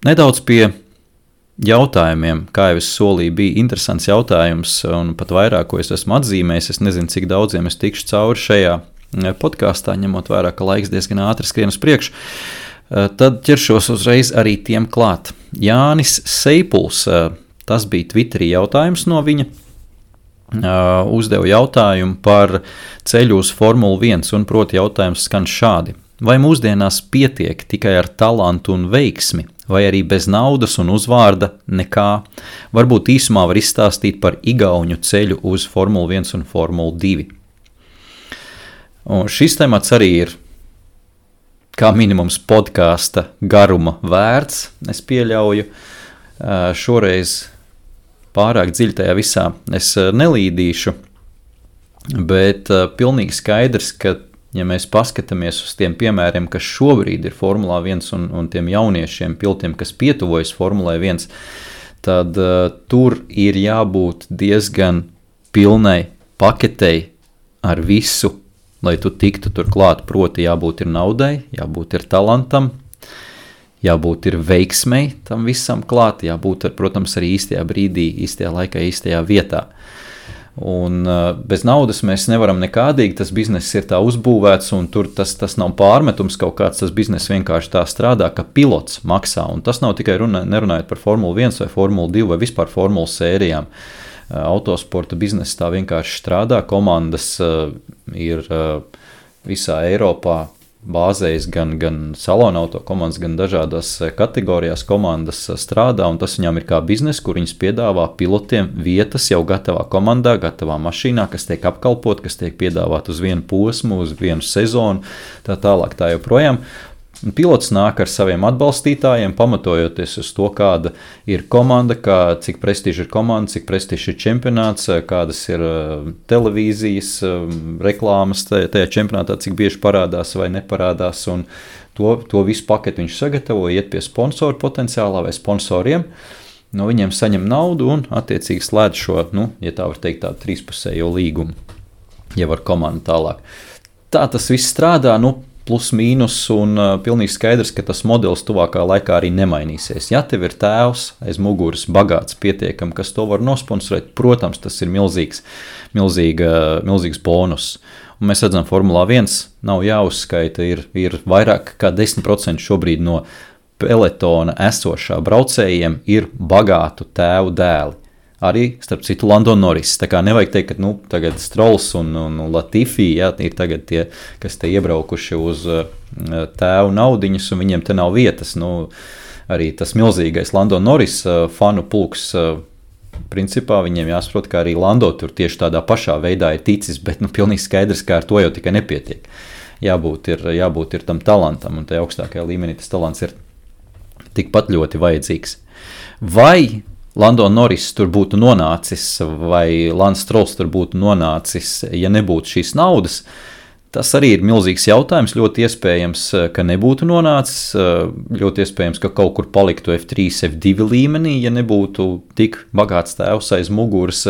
Nedaudz pie jautājumiem, kā jau es solīju, bija interesants jautājums, un pat vairāk, ko es esmu atzīmējis, es nezinu, cik daudziem es tikšu cauri šajā podkāstā, ņemot vērā, ka laiks diezgan ātri skrien uz priekšu. Tad ķeršos uzreiz arī tiem klāt. Jānis Seipuls, tas bija Twitterī jautājums no viņa, uzdeva jautājumu par ceļu uz Formulu 1, un proti jautājums skan šādi. Vai mūsdienās pietiek tikai ar talantu un veiksmi, vai arī bez naudas un uzvārda nekā? Varbūt īsumā var izstāstīt par igauņu ceļu uz Formulu 1 un Formulu 2. Un šis temats arī ir kā minimums podkāsta garuma vērts, es pieļauju. Šoreiz pārāk dziļi tajā visā es nelīdīšu, bet pilnīgi skaidrs, ka, ja mēs paskatāmies uz tiem piemēriem, kas šobrīd ir Formulā 1 un tiem jauniešiem pilotiem, kas pietuvojas Formulai 1, tad tur ir jābūt diezgan pilnai paketei ar visu, lai tu tiktu tur klāt, proti jābūt ir naudai, jābūt ir talantam, jābūt ir veiksmei tam visam klāt, jābūt, protams, arī īstajā brīdī, īstajā laikā, īstajā vietā. Un bez naudas mēs nevaram nekādīgi, tas bizness ir tā uzbūvēts, un tur tas nav pārmetums kaut kāds, tas bizness vienkārši tā strādā, ka pilots maksā, un tas nav tikai nerunājot par Formulu 1 vai Formulu 2 vai vispār Formulu sērijām. Autosporta bizness tā vienkārši strādā, komandas ir visā Eiropā bāzējas gan salona auto komandas, gan dažādās kategorijās komandas strādā, un tas viņām ir kā biznes, kur viņas piedāvā pilotiem vietas jau gatavā komandā, gatavā mašīnā, kas tiek apkalpot, kas tiek piedāvāt uz vienu posmu, uz vienu sezonu, tā tālāk tā joprojām. Pilots nāk ar saviem atbalstītājiem, pamatojoties uz to, kāda ir komanda, cik prestiža ir komanda, cik prestiža ir čempionāts, kādas ir televīzijas reklāmas tajā čempionātā, cik bieži parādās vai neparādās. Un to visu paketi viņš sagatavo, iet pie sponsoru potenciālā vai sponsoriem. No viņiem saņem naudu un attiecīgi slēdz šo, ja tā var teikt, tādu trīspusējo līgumu, jau ar komandu tālāk. Tā tas viss strādā, plus mīnus, un pilnīgi skaidrs, ka tas modelis tuvākā laikā arī nemainīsies. Ja tev ir tēvs aiz muguras bagāts pietiekam, kas to var nosponsorēt, protams, tas ir milzīgs bonus. Un mēs redzam, Formulā 1 nav jāuzskaita, ir vairāk kā 10% šobrīd no peletona esošā braucējiem ir bagātu tēvu dēli. Arī, starp citu, Lando Norris. Tā kā nevajag teikt, ka tagad Strolls un Latifi ir tagad tie, kas te iebraukuši uz tēvu naudiņas, un viņiem te nav vietas. Arī tas milzīgais Lando Norris fanu pulks, principā viņiem jāsaprot, ka arī Lando tur tieši tādā pašā veidā ir ticis, bet pilnīgi skaidrs, ka ar to jau tikai nepietiek. Jābūt ir tam talantam, un tajā augstākajā līmenī tas talants ir tikpat ļoti vajadzīgs. Vai Lando Norris tur būtu nonācis, vai Lance Strolls tur būtu nonācis, ja nebūtu šīs naudas, tas arī ir milzīgs jautājums. Ļoti iespējams, ka nebūtu nonācis, ļoti iespējams, ka kaut kur paliktu F3, F2 līmenī, ja nebūtu tik bagāts tēvs aiz muguras.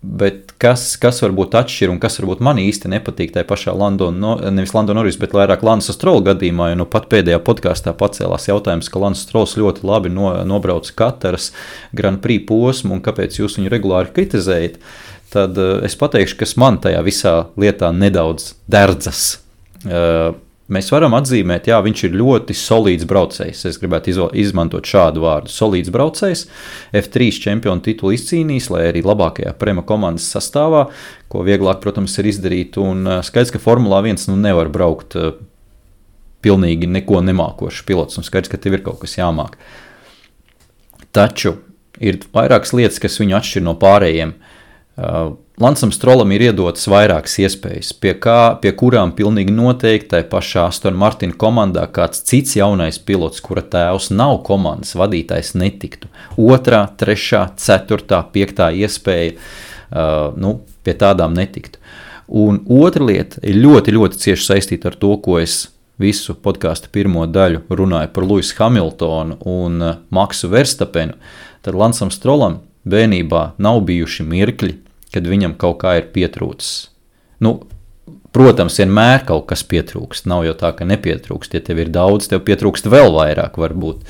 Bet kas varbūt atšķir un kas varbūt man īsti nepatīk tajā pašā nevis Lando Norris, bet vairāk Lance Stroll gadījumā, jo pat pēdējā podkāstā pacēlās jautājums, ka Lance Strolls ļoti labi nobrauc Kataras Grand Prix posmu un kāpēc jūs viņu regulāri kritizējat, tad es pateikšu, kas man tajā visā lietā nedaudz derdzas. Mēs varam atzīmēt, jā, viņš ir ļoti solīds braucējs. Es gribētu izmantot šādu vārdu. Solīds braucējs, F3 čempionu titulu izcīnījis, lai arī labākajā Prema komandas sastāvā, ko vieglāk, protams, ir izdarīt. Un skaidrs, ka Formulā 1 nevar braukt pilnīgi neko nemākošs pilots, un skaidrs, ka tev ir kaut kas jāmāk. Taču ir vairākas lietas, kas viņu atšķir no pārējiem. Lancam Strollam ir iedotas vairākas iespējas, pie kurām pilnīgi noteikti tai pašā Aston Martin komandā kāds cits jaunais pilots, kura tēvs nav komandas vadītājs, netiktu. 2., 3., 4., 5. iespēja, pie tādām netiktu. Un otra lieta ir ļoti, ļoti cieši saistīta ar to, ko es visu podkāstu pirmo daļu runāju par Lewisu Hamiltonu un Maksu Verstapenu. Tad Lancam Strollam bērnībā nav bijuši mirkļi, kad viņam kaut kā ir pietrūcis. Protams, vienmēr kaut kas pietrūkst. Nav jau tā, ka nepietrūkst. Ja tev ir daudz, tev pietrūkst vēl vairāk varbūt.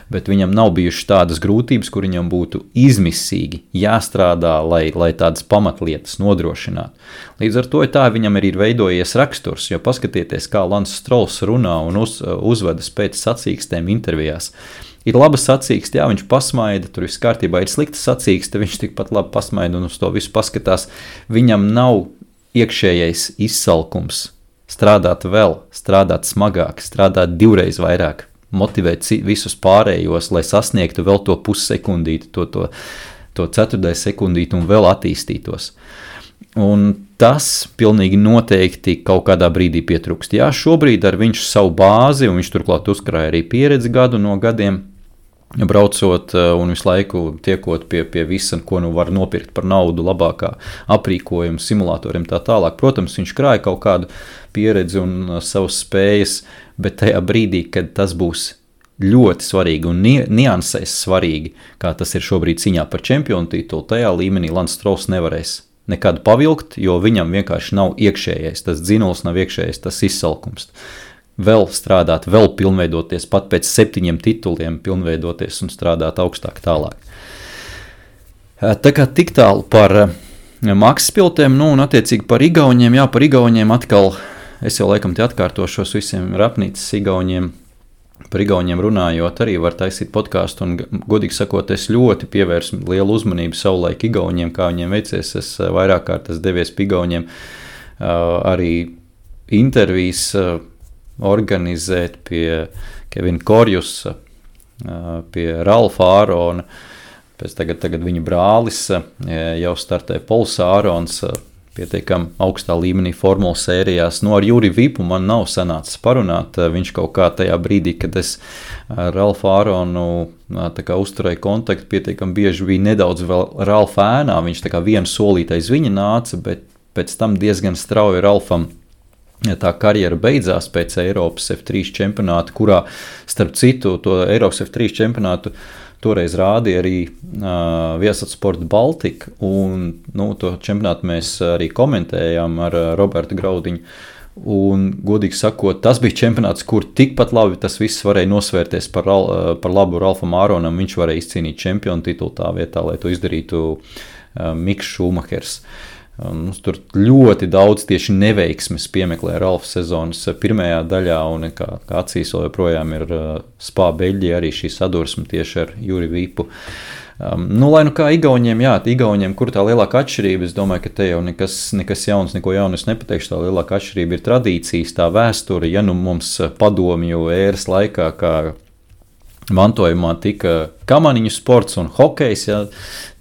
Bet viņam nav bijušas tādas grūtības, kur viņam būtu izmisīgi jāstrādā, lai tādas pamatlietas nodrošinātu. Līdz ar to tā viņam arī ir veidojies raksturs, jo paskatieties, kā Lance Strolls runā un uzvedas pēc sacīkstēm intervijās. Ir laba sacīkste, jā, viņš pasmaida, tur viss kārtībā, ir slikta sacīkste, viņš tikpat labi pasmaida un uz to visu paskatās. Viņam nav iekšējais izsalkums strādāt vēl, strādāt smagāk, strādāt 2 vairāk, motivēt visus pārējos, lai sasniegtu vēl to pussekundīti, to 4. sekundīti un vēl attīstītos. Un tas pilnīgi noteikti kaut kādā brīdī pietrūkst. Jā, šobrīd ar viņš savu bāzi, un viņš turklāt uzkrāja arī pieredzi gadu no gadiem, braucot un visu laiku tiekot pie visa, ko var nopirkt par naudu, labākā aprīkojuma, simulatoriem tā tālāk. Protams, viņš krāja kaut kādu pieredzi un savas spējas, bet tajā brīdī, kad tas būs ļoti svarīgi un niansēs svarīgi, kā tas ir šobrīd cīņā par čempionu titulu, tajā līmenī Lance Strolls nevarēs nekad pavilkt, jo viņam vienkārši nav iekšējais, tas dzinuls nav iekšējais, tas izsalkums. Vēl strādāt, vēl pilnveidoties, pat pēc 7 tituliem pilnveidoties un strādāt augstāk tālāk. Tā kā tik tālu par maksas piltēm, un attiecīgi par igauņiem, par igauņiem atkal, es jau laikam te atkārtošos visiem rapnīcas igauņiem, par igauņiem runājot, arī var taisīt podkāstu, un godīgi sakot, es ļoti pievērsu lielu uzmanību savulaik igauņiem, kā viņiem veicies, es vairāk kārtas devies pie igauņiem, arī intervijas organizēt pie Kevina Korjusa, pie Ralfa Ārona, pēc tagad viņa brālis jau startē Pols Ārons, pietiekam augstā līmenī formula sērijās. Ar Juri Vipu man nav sanācis parunāt, viņš kaut kā tajā brīdī, kad es ar Ralfu Āronu uzturēju kontaktu, pietiekam bieži bija nedaudz vēl Ralfa ēnā, viņš tā kā vienu solīti aiz viņa nāca, bet pēc tam diezgan strauji Ralfam tā karjera beidzās pēc Eiropas F3 čempionāta, kurā, starp citu, to Eiropas F3 čempionātu toreiz rādīja arī Viasat Baltika, un to čempionātu mēs arī komentējām ar Robertu Graudiņu. Un, godīgi sakot, tas bija čempionāts, kur tikpat labi tas viss varēja nosvērties par labu Ralfam Āronam. Viņš varēja izcīnīt čempionu titulu tā vietā, lai to izdarītu Miks Šumahers. Tur ļoti daudz tieši neveiksmes piemeklē Ralfa sezonas pirmajā daļā, un kā acīs vēl joprojām ir Spā Beļģija arī šī sadursme tieši ar Juri Vipu. Lai kā igauņiem, kur tā lielākā atšķirība, es domāju, ka te jau nekas jauns, neko jaunu es nepateikšu, tā lielākā atšķirība ir tradīcijas, tā vēsture, mums padomju ēras laikā, kā mantojumā tika kamaniņu sports un hokejs,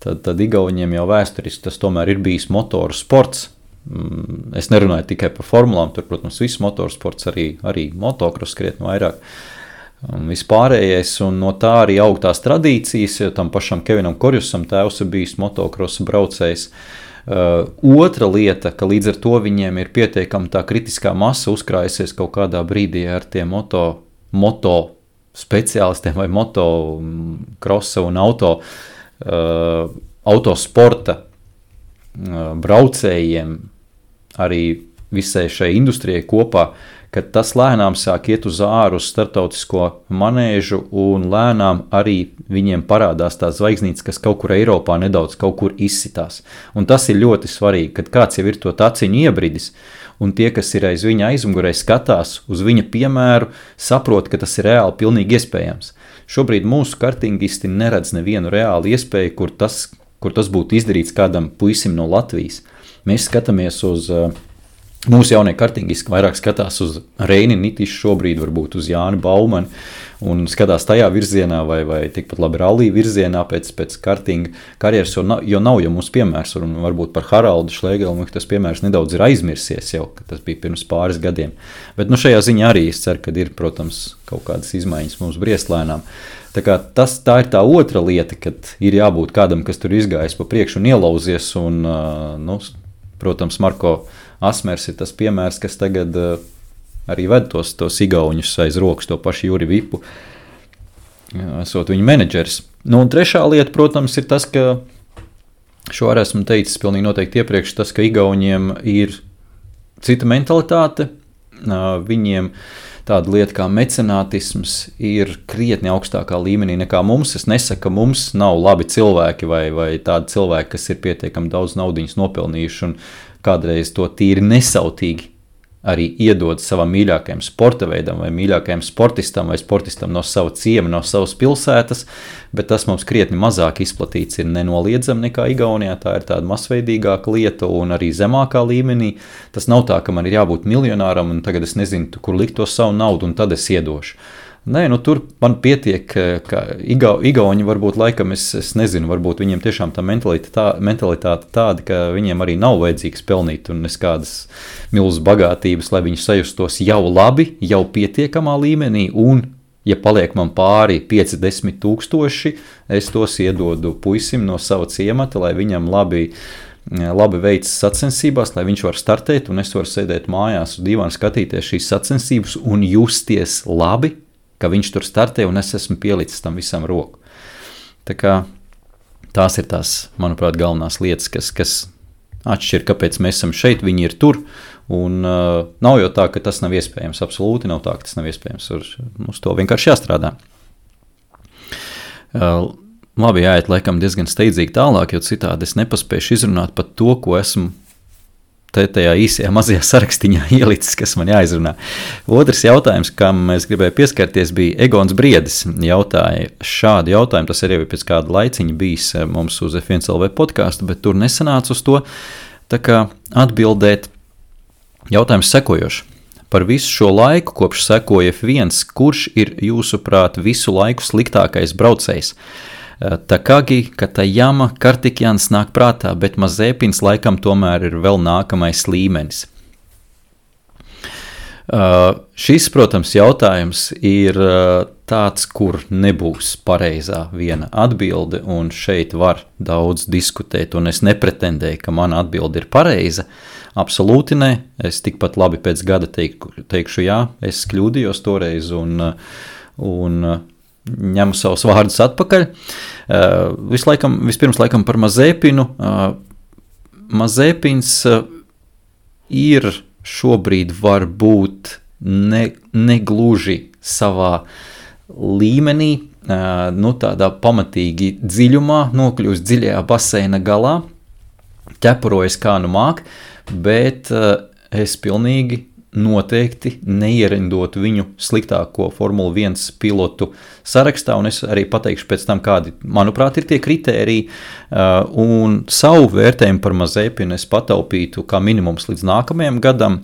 tad igauņiem jau vēsturiski tas tomēr ir bijis motoru sports. Es nerunāju tikai par formulām, tur, protams, viss motoru sports, arī motokros krietni vairāk. Vispārējais, un no tā arī aug tās tradīcijas, jo tam pašam Kevinam Korjusam tēvs ir bijis motokrosa braucējs. Otra lieta, ka līdz ar to viņiem ir pietiekama tā kritiskā masa uzkrājusies kaut kādā brīdī ar tiem moto speciālistiem vai motokrosa un autosporta braucējiem, arī visai šai industrijai kopā, ka tas lēnām sāk iet uz āru uz starptautisko manēžu, un lēnām arī viņiem parādās tās zvaigznītes, kas kaut kur Eiropā nedaudz kaut kur izsitās. Un tas ir ļoti svarīgi, kad kāds jau ir to taciņu iebridis, un tie, kas ir aiz viņa aizmugurē, skatās uz viņa piemēru, saprot, ka tas ir reāli pilnīgi iespējams. Šobrīd mūsu kartingisti neredz nevienu reālu iespēju, kur tas būtu izdarīts kādam puisim no Latvijas. Mēs skatāmies uz mūsu jaunie kartingisti, vairāk skatās uz Reini Nitišu šobrīd, varbūt uz Jāni Baumani, un skatās tajā virzienā vai tikpat labi rallī virzienā pēc kartinga karjeras, jo nav jau mums piemērs, un varbūt par Haraldu Šlēgelu tas piemērs nedaudz ir aizmirsies jau, ka tas bija pirms pāris gadiem. Bet šajā ziņā arī es ceru, ka ir, protams, kaut kādas izmaiņas mums briestlēnām. Tā ir tā otra lieta, kad ir jābūt kādam, kas tur izgājis pa priekšu un ielauzies, un, protams, Marko Asmers ir tas piemērs, kas tagad arī ved tos igauņus aiz rokas, to pašu Juri Vipu, esot viņa menedžeris. Un trešā lieta, protams, ir tas, ka šo arī esmu teicis pilnīgi noteikti iepriekš, tas, ka igauņiem ir cita mentalitāte, viņiem tāda lieta kā mecenātisms ir krietni augstākā līmenī nekā mums. Es nesaku, ka mums nav labi cilvēki vai tādi cilvēki, kas ir pietiekami daudz naudiņas nopelnījuši un kādreiz to tīri nesautīgi arī iedod savam mīļākajam sporta veidam vai mīļākajam sportistam vai sportistam no sava ciema, no savas pilsētas, bet tas mums krietni mazāk izplatīts ir nenoliedzami nekā Igaunijā. Tā ir tāda masveidīgāka lieta un arī zemākā līmenī. Tas nav tā, ka man ir jābūt miljonāram un tagad es nezinu, kur likt to savu naudu un tad es iedošu. Nē, tur man pietiek, ka Igauni varbūt laikam, es nezinu, varbūt viņiem tiešām tā mentalitāte tāda, ka viņiem arī nav vajadzīgs pelnīt un es kādas milzas bagātības, lai viņi sajustos jau labi, jau pietiekamā līmenī, un, ja paliek man pāri 5-10 tūkstoši, es tos iedodu puisim no sava ciemata, lai viņam labi veicas sacensībās, lai viņš var startēt, un es varu sēdēt mājās uz divām skatīties šīs sacensības un justies labi, ka viņš tur startē un es esmu pielicis tam visam roku. Tā kā tās ir tās, manuprāt, galvenās lietas, kas atšķir, kāpēc mēs esam šeit, viņi ir tur, un nav jau tā, ka tas nav iespējams, absolūti nav tā, ka tas nav iespējams, uz to vienkārši jāstrādā. labi, jāiet laikam diezgan steidzīgi tālāk, jo citādi es nepaspēšu izrunāt pat to, ko esmu tajā īsajā mazajā sarakstiņā ielicis, kas man jāizrunā. Otrs jautājums, kam es gribēju pieskarties, bija Egons Briedis. Jautāja šādu jautājumu, tas arī pēc kāda laiciņa bijis mums uz F1LV podcastu, bet tur nesanāca uz to. Tā kā atbildēt jautājums sekojoši. Par visu šo laiku, kopš sekoja F1, kurš ir jūsuprāt visu laiku sliktākais braucējs? Takagi, Katayama, Kartikjans nāk prātā, bet Mazepins laikam tomēr ir vēl nākamais līmenis. Šis, protams, jautājums ir tāds, kur nebūs pareizā viena atbilde, un šeit var daudz diskutēt, un es nepretendēju, ka mana atbilde ir pareiza. Absolūti ne. Es tikpat labi pēc gada teikšu jā, es kļūdījos toreiz, un ņemu savus vārdus atpakaļ. Vispirms laikam par Mazepinu. Mazepins ir šobrīd varbūt negluži savā līmenī, tādā pamatīgi dziļumā, nokļūst dziļajā baseina galā, ķepurojas kā nu māk, bet es pilnīgi noteikti neierindotu viņu sliktāko Formula 1 pilotu sarakstā, un es arī pateikšu pēc tam, kādi, manuprāt, ir tie kritēriji, un savu vērtējumu par Mazepinu es pataupītu kā minimums līdz nākamajam gadam,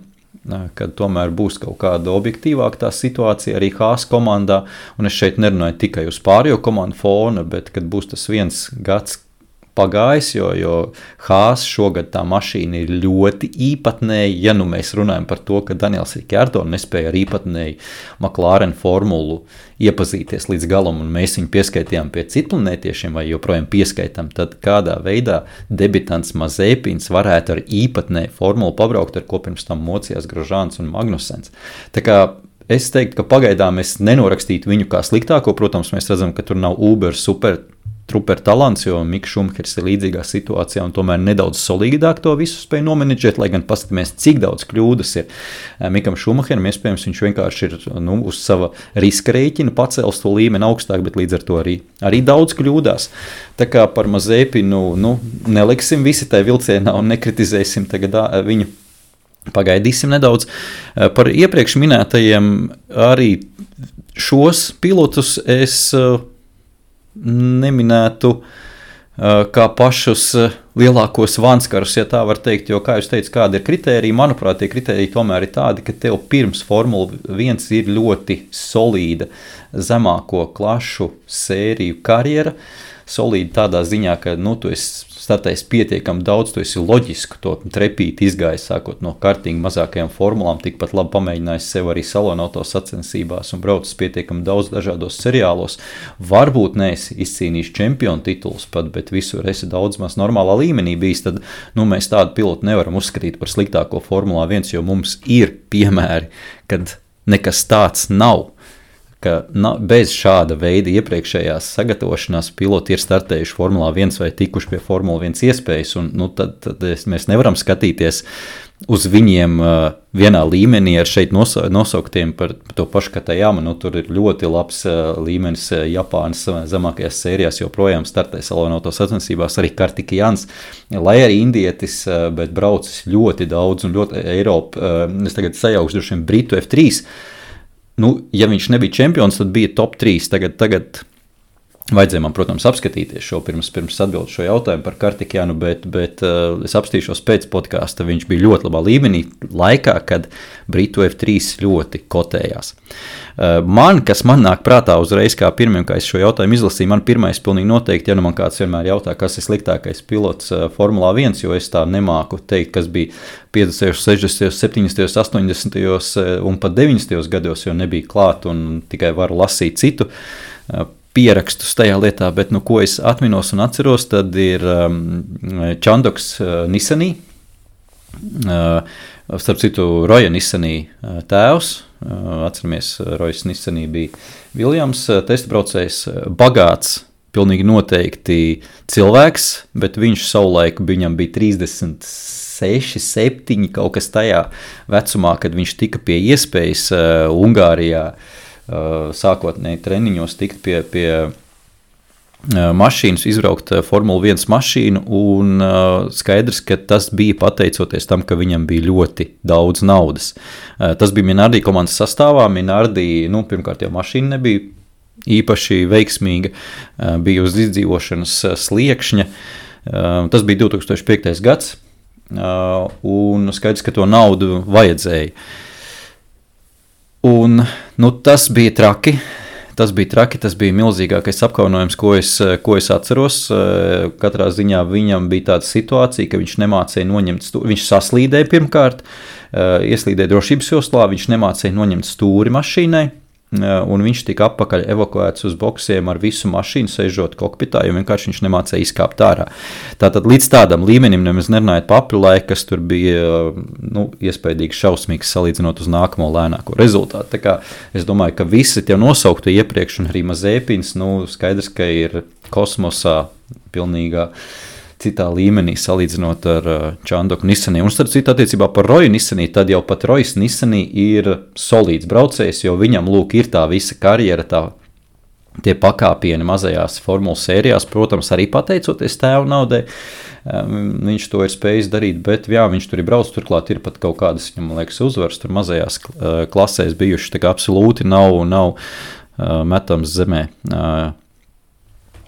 kad tomēr būs kaut kāda objektīvāka tā situācija arī Haas komandā, un es šeit nerunāju tikai uz pārējo komandu fona, bet kad būs tas viens gads pagājis, jo Haas šogad tā mašīna ir ļoti īpatnēja, ja nu mēs runājam par to, ka Daniels Ricciardo nespēja ar īpatnēju McLaren formulu iepazīties līdz galam, un mēs viņu pieskaitījām pie citplanētiešiem vai joprojām pieskaitām, tad kādā veidā debitants Mazepins varētu ar īpatnēju formulu pabraukt, ar ko pirms tam mocījās Grosjeans un Magnusens. Tā kā es teiktu, ka pagaidām es nenorakstītu viņu kā sliktāko, protams, mēs redzam, ka tur nav Uber super talants, jo Miks Šumahers ir līdzīgā situācijā un tomēr nedaudz solīdāk to visu spēja nomenedžēt, lai gan paskatāmies, cik daudz kļūdas ir Mikam Šumaheram, iespējams, viņš vienkārši ir uz sava riska rēķina pacēlis to līmeni augstāk, bet līdz ar to arī daudz kļūdās. Tā kā par Mazepinu, neliksim visi tai vilcienā un nekritizēsim tagad viņu. Pagaidīsim nedaudz. Par iepriekš minētajiem arī šos pilotus es neminētu kā pašus lielākos vanskarus, ja tā var teikt, jo, kā jūs teicu, kāda ir kritērija, manuprāt, tie kritēriji tomēr ir tādi, ka tev pirms Formula 1 ir ļoti solīda zemāko klašu sēriju karjera, solīda tādā ziņā, ka, tu esi startējis pietiekami daudz, tu esi loģisku to trepīti izgājis, sākot no kartinga mazākajām formulām, tikpat labi pamēģinājis sev arī salonauto sacensībās un braucis pietiekami daudz dažādos seriālos. Varbūt neesi izcīnījis čempionu titulus pat, bet visur esi daudz maz normālā līmenī bijis, tad mēs tādu pilotu nevaram uzskatīt par sliktāko Formulā 1, jo mums ir piemēri, kad nekas tāds nav. Ka bez šāda veida iepriekšējās sagatavošanās piloti ir startējuši Formulā 1 vai tikuši pie Formula 1 iespējas, un tad mēs nevaram skatīties uz viņiem vienā līmenī ar šeit nosauktiem par to pašu Katayama. Tur ir ļoti labs līmenis Japānas zemākajās sērijās, joprojām startē salonauto sacensībās arī Kartikjans, lai arī indietis, bet braucis ļoti daudz un ļoti Eiropa, es tagad sajaukšu droši vien Britu F3, ja viņš nebija čempions, tad bija top 3. Tagad vajadzēja man, protams, apskatīties šo pirms atbildu šo jautājumu par Kartikjanu, bet es apstīšos pēc podkāsta. Viņš bija ļoti labā līmenī laikā, kad Britu F3 ļoti kotējās. Kas man nāk prātā uzreiz, kā pirmiem, kā es šo jautājumu izlasīju, man pirmais pilnīgi noteikti, ja man kāds vienmēr jautā, kas ir sliktākais pilots Formulā 1, jo es tā nemāku teikt, kas bija 50., 60., 70., 80. un pat 90. gados, jo nebija klāt un tikai varu lasīt citu pierakstus tajā lietā, bet ko es atminos un atceros, tad ir Chandoks Nissanī, starp citu Roja Nissanī tēvs, atceramies, Rojas Nissanī bija Viljams, testbraucējs, bagāts, pilnīgi noteikti cilvēks, bet viņš savulaik viņam bija 36, 7, kaut kas tajā vecumā, kad viņš tika pie iespējas Ungārijā, sākotnēji treniņos tikt pie mašīnas, izbraukt Formula 1 mašīnu, un skaidrs, ka tas bija pateicoties tam, ka viņam bija ļoti daudz naudas. Tas bija Minardi komandas sastāvā. Minardi, pirmkārt jau mašīna nebija īpaši veiksmīga, bija uz izdzīvošanas sliekšņa. Tas bija 2005. gads, un skaidrs, ka to naudu vajadzēja. Un, tas bija traki. Tas bija milzīgākais apkaunojums, ko es atceros. Katrā ziņā viņam bija tāda situācija, ka viņš nemācēja noņemt stūri. Viņš saslīdēja pirmkārt, ieslīdēja drošības joslā, viņš nemācēja noņemt stūri mašīnai, un viņš tika atpakaļ evakuēts uz boksiem ar visu mašīnu, sēžot kokpitā, jo vienkārši viņš nemācēja izkāpt ārā. Tātad līdz tādam līmenim nemaz nerunājot pa aprilaiku, kas tur bija iespējīgi šausmīgs salīdzinot uz nākamo lēnāko rezultātu. Tā kā es domāju, ka visi tie nosauktu iepriekš, un arī Mazepins, skaidrs, ka ir kosmosā pilnīgā citā līmenī salīdzinot ar Čandoku Nissanī. Un starp citu attiecībā par Roju Nissanī, tad jau pat Rojas Nissanī ir solīds braucējs, jo viņam ir tā visa karjera, tie pakāpieni mazajās formulas sērijās, protams, arī pateicoties tēva naudai. Viņš to ir spējis darīt, bet jā, viņš tur ir braucis, turklāt ir pat kaut kādas, man liekas, uzvaras tur mazajās klasēs bijušas, tā kā absolūti nav metams zemē.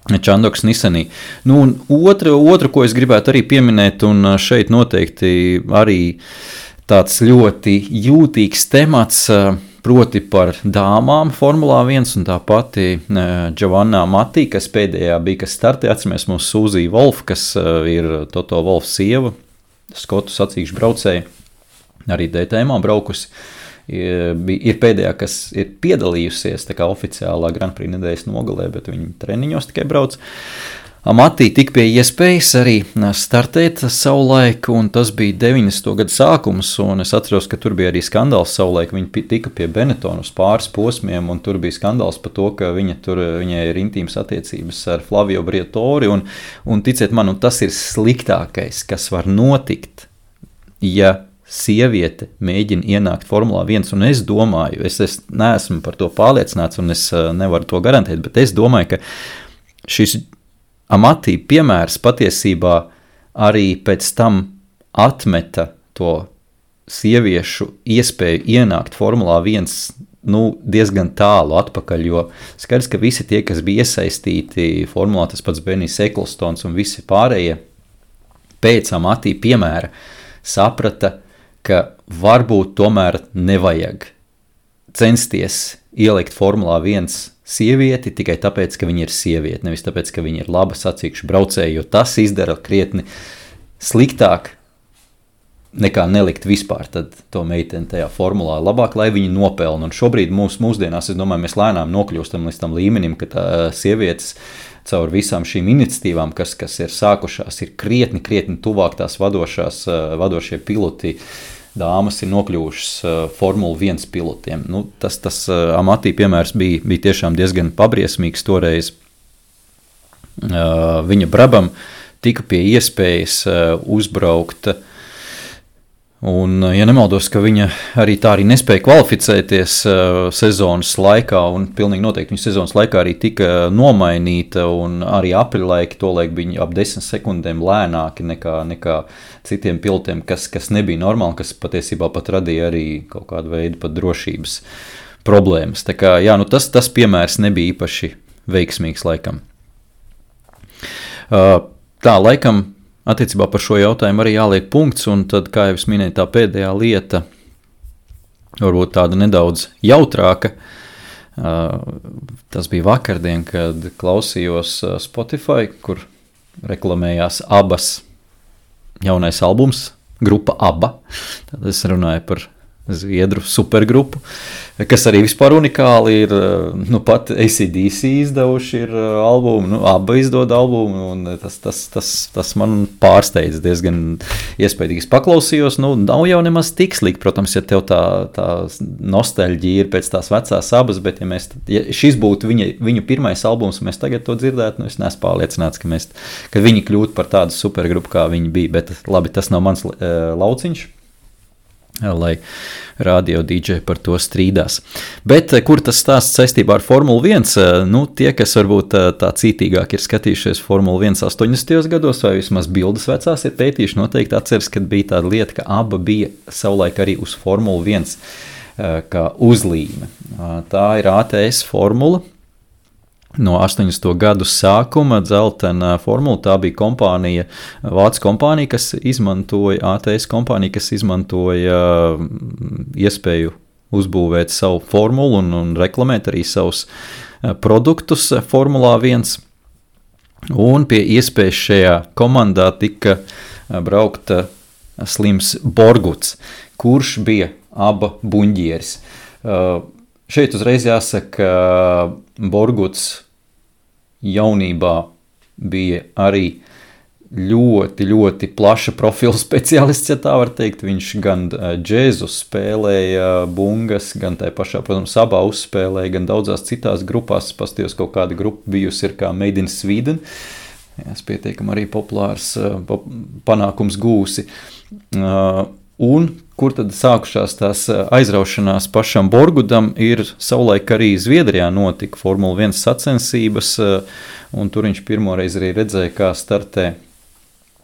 Čandoks Nissanī. Un otru, ko es gribētu arī pieminēt, un šeit noteikti arī tāds ļoti jūtīgs temats, proti par dāmām Formulā 1, un tā pati Giovanna Matti, kas pēdējā bija, kas startē, atceramies mūsu Sūzija Wolf, kas ir Toto Wolf sieva, skotu sacīkšu braucēja, arī DTM braukusi. Ir pēdējā, kas ir piedalījusies tā kā oficiālā Grand Prix nedēļas nogalē, bet viņi treniņos tikai brauc. Matī tika pie iespējas arī startēt savulaik, un tas bija 90. gadu sākums, un es atceros, ka tur bija arī skandāls savulaik. Viņi tika pie Benetton uz pāris posmiem, un tur bija skandāls par to, ka viņai ir intīmas attiecības ar Flavio Briatore, un ticiet man, tas ir sliktākais, kas var notikt, ja sieviete mēģina ienākt Formulā 1, un es domāju, es neesmu par to pārliecināts, un es nevaru to garantēt, bet es domāju, ka šis Amati piemērs patiesībā arī pēc tam atmeta to sieviešu iespēju ienākt Formulā 1 diezgan tālu atpakaļ, jo skaidrs, ka visi tie, kas bija iesaistīti Formulā, tas pats Benijs Eklstons un visi pārējie, pēc Amati piemēra saprata, ka varbūt tomēr nevajag censties ielikt Formulā 1 sievieti tikai tāpēc, ka viņa ir sieviete, nevis tāpēc, ka viņa ir laba sacīkšu braucēja, jo tas izdara krietni sliktāk nekā nelikt vispār tad to meiteni tajā formulā. Labāk, lai viņi nopelna. Un šobrīd mūsdienās, es domāju, mēs lēnām nokļūstam līdz tam līmenim, ka tā sievietes caur visām šīm iniciatīvām, kas ir sākušās, ir krietni tuvāk tās vadošie piloti. Dāmas ir nokļuvušas Formula 1 pilotiem. Tas Amati piemērs bija tiešām diezgan pabriesmīgs toreiz. Viņa Brabam tika pie iespējas uzbraukt, un, ja nemaldos, ka viņa arī nespēja kvalificēties sezonas laikā, un pilnīgi noteikti viņa sezonas laikā arī tika nomainīta, un arī aprilaiki tolaik bija ap 10 sekundēm lēnāki nekā citiem pilotiem, kas nebija normāli, kas patiesībā pat radīja arī kaut kādu veidu pat drošības problēmas. Tā kā, jā, tas piemērs nebija īpaši veiksmīgs laikam. Tā, laikam, attiecībā par šo jautājumu arī jāliek punkts, un tad, kā jau es minēju, tā pēdējā lieta, varbūt tāda nedaudz jautrāka, tas bija vakardien, kad klausījos Spotify, kur reklamējās Abbas jaunais albums, grupa Abba. Tad es runāju par zviedru supergrupu, kas arī vispār unikāli ir, pat AC/DC izdevuši ir albumu, Abba izdod albumu, un tas man pārsteidz diezgan iespējīgi. Es paklausījos, nav jau nemaz tik slikti, protams, ja tev tā nostalģija ir pēc tās vecās Abbas, bet ja šis būtu viņu pirmais albums, mēs tagad to dzirdētu, es neesmu pārliecināts, ka viņi kļūtu par tādu supergrupu, kā viņi bija, bet labi, tas nav mans lauciņš. lai radio DJ par to strīdās. Bet kur tas stāsts saistībā ar Formulu 1? Nu, tie, kas varbūt tā cītīgāk ir skatījušies Formulu 1 80. gados, vai vismaz bildes vecās ir pētījuši, noteikti atceras, kad bija tāda lieta, ka aba bija savulaik arī uz Formulu 1 kā uzlīme. Tā ir ATS formula. No 80. gadu sākuma dzeltena formula, tā bija kompānija, vācu kompānija, kas izmantoja, ATS kompānija, kas izmantoja iespēju uzbūvēt savu formulu un reklamēt arī savus produktus Formulā 1. Un pie iespējas šajā komandā tika braukt Slims Borguts, kurš bija aba buņģieris. Šeit uzreiz jāsaka, Borguts jaunībā bija arī ļoti, ļoti plaša profila speciālists, ja tā var teikt. Viņš gan džēzu spēlēja bungas, gan tai pašā, protams, abā uzspēlēja, gan daudzās citās grupās. Pastījos kaut kāda grupa bijusi ir kā Made in Sweden. Es pietiekam arī populārs panākums gūsi. Un kur tad sākušās tās aizraušanās pašam Borgudam, ir savulaik arī Zviedrijā notika Formula 1 sacensības, un tur viņš pirmoreiz arī redzēja, kā startē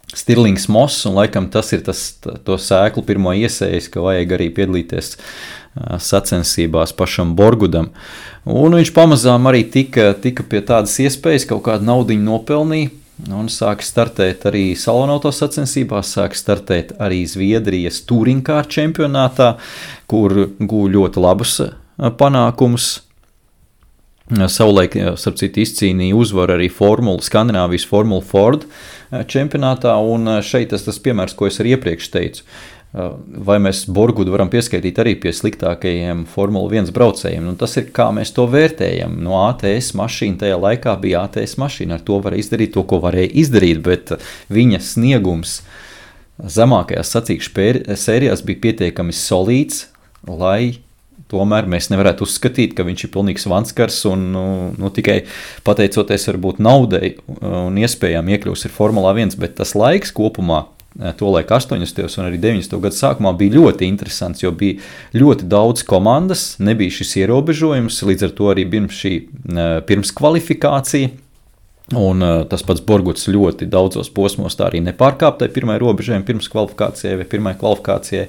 Stirlings Moss, un laikam tas ir to sēklu pirmo iesējis, ka vajag arī piedalīties sacensībās pašam Borgudam. Un viņš pamazām arī tika pie tādas iespējas, kaut kādu naudiņu nopelnīja, un sāk startēt arī salonauto sacensībās, sāk startēt arī Zviedrijas touringkāru čempionātā, kur guva ļoti labus panākumus. Savulaik, starp citu, izcīnīja uzvaru arī Skandināvijas Formula Ford čempionātā, un šeit tas piemērs, ko es arī iepriekš teicu. Vai mēs Borgudu varam pieskaitīt arī pie sliktākajiem Formula 1 braucējiem. Un tas ir, kā mēs to vērtējam. No ATS mašīna tajā laikā bija ATS mašīna. Ar to varēja izdarīt to, ko varēja izdarīt, bet viņa sniegums zemākajās sacīkšu sērijās bija pietiekami solīds, lai tomēr mēs nevarētu uzskatīt, ka viņš ir pilnīgs vanskars un tikai pateicoties varbūt naudai un iespējām iekļūs ir Formulā 1, bet tas laiks kopumā tolaik 80. un arī 90. gadu sākumā bija ļoti interesants, jo bija ļoti daudz komandas, nebija šis ierobežojums, līdz ar to arī bija šī pirms kvalifikācija, un tas pats Borguts ļoti daudzos posmos tā arī nepārkāptai pirmai robežojumi pirms kvalifikācijai vai pirmai kvalifikācijai.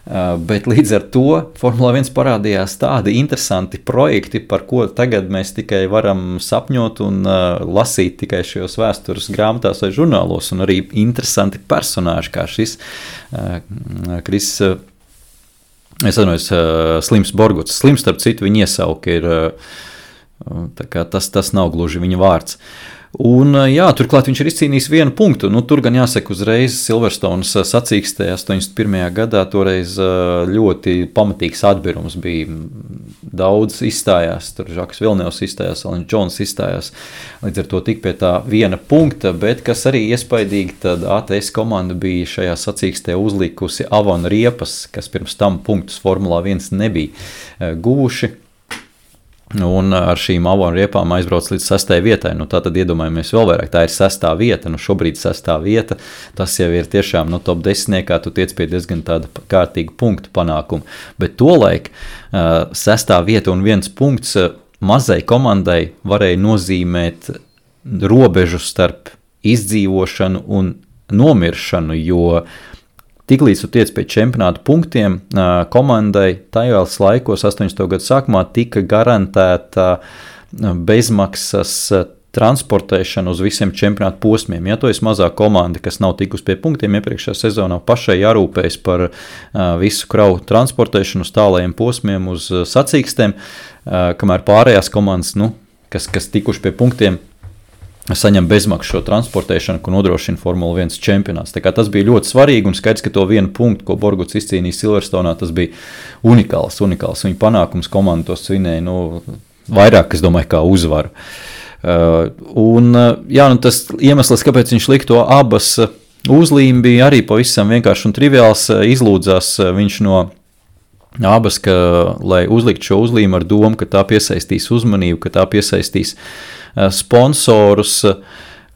Bet līdz ar to Formula 1 parādījās tādi interesanti projekti, par ko tagad mēs tikai varam sapņot un lasīt tikai šajos vēstures grāmatās vai žurnālos, un arī interesanti personāži, kā šis Slims Borguts. Slims, starp citu, viņa iesauka ir, tā kā tas nav gluži viņa vārds. Un, jā, turklāt viņš ir izcīnījis 1 punktu. Tur gan jāsaka uzreiz Silverstones sacīkstē 81. gadā toreiz ļoti pamatīgs atbirums bija. Daudz izstājās, tur Žaks Vilnevs izstājās, Alens Džons izstājās, līdz ar to tik pie tā 1 punkta, bet kas arī iespaidīgi, tad ATS komanda bija šajā sacīkstē uzlikusi Avon riepas, kas pirms tam punktus Formulā 1 nebija guvuši. Un ar šīm Avon riepām aizbrauc līdz 6. vietai. Tātad iedomājamies vēl vairāk, tā ir 6. vieta, šobrīd 6. vieta, tas jau ir tiešām top 10, tu tiec pie diezgan tāda kārtīga punktu panākuma. Bet tolaik 6. vieta un 1 punkts mazai komandai varēja nozīmēt robežu starp izdzīvošanu un nomiršanu, jo tiklīdz tu tiec pie čempionāta punktiem, komandai tajos laikos 80. gadu sākumā tika garantēta bezmaksas transportēšana uz visiem čempionāta posmiem. Ja tu esi mazā komanda, kas nav tikus pie punktiem iepriekšējā sezonā, pašai jārūpējas par visu kravu transportēšanu uz tālajiem posmiem, uz sacīkstēm, kamēr pārējās komandas, kas tikuši pie punktiem, saņem bezmaksu šo transportēšanu, ko nodrošina Formula 1 čempionāts. Tā kā tas bija ļoti svarīgi un skaidrs, ka to 1 punktu, ko Borguts izcīnīja Silverstonā, tas bija unikāls. Viņa panākums komanda to svinēja, vairāk, es domāju, kā uzvaru. Tas iemesls, kāpēc viņš lika to abas uzlīmi, bija arī pavisam vienkārši un triviāls. Izlūdzās viņš no abas, lai uzlikt šo uzlīmi ar domu, ka tā piesaistīs uzmanību, ka tā piesaistīs sponsorus,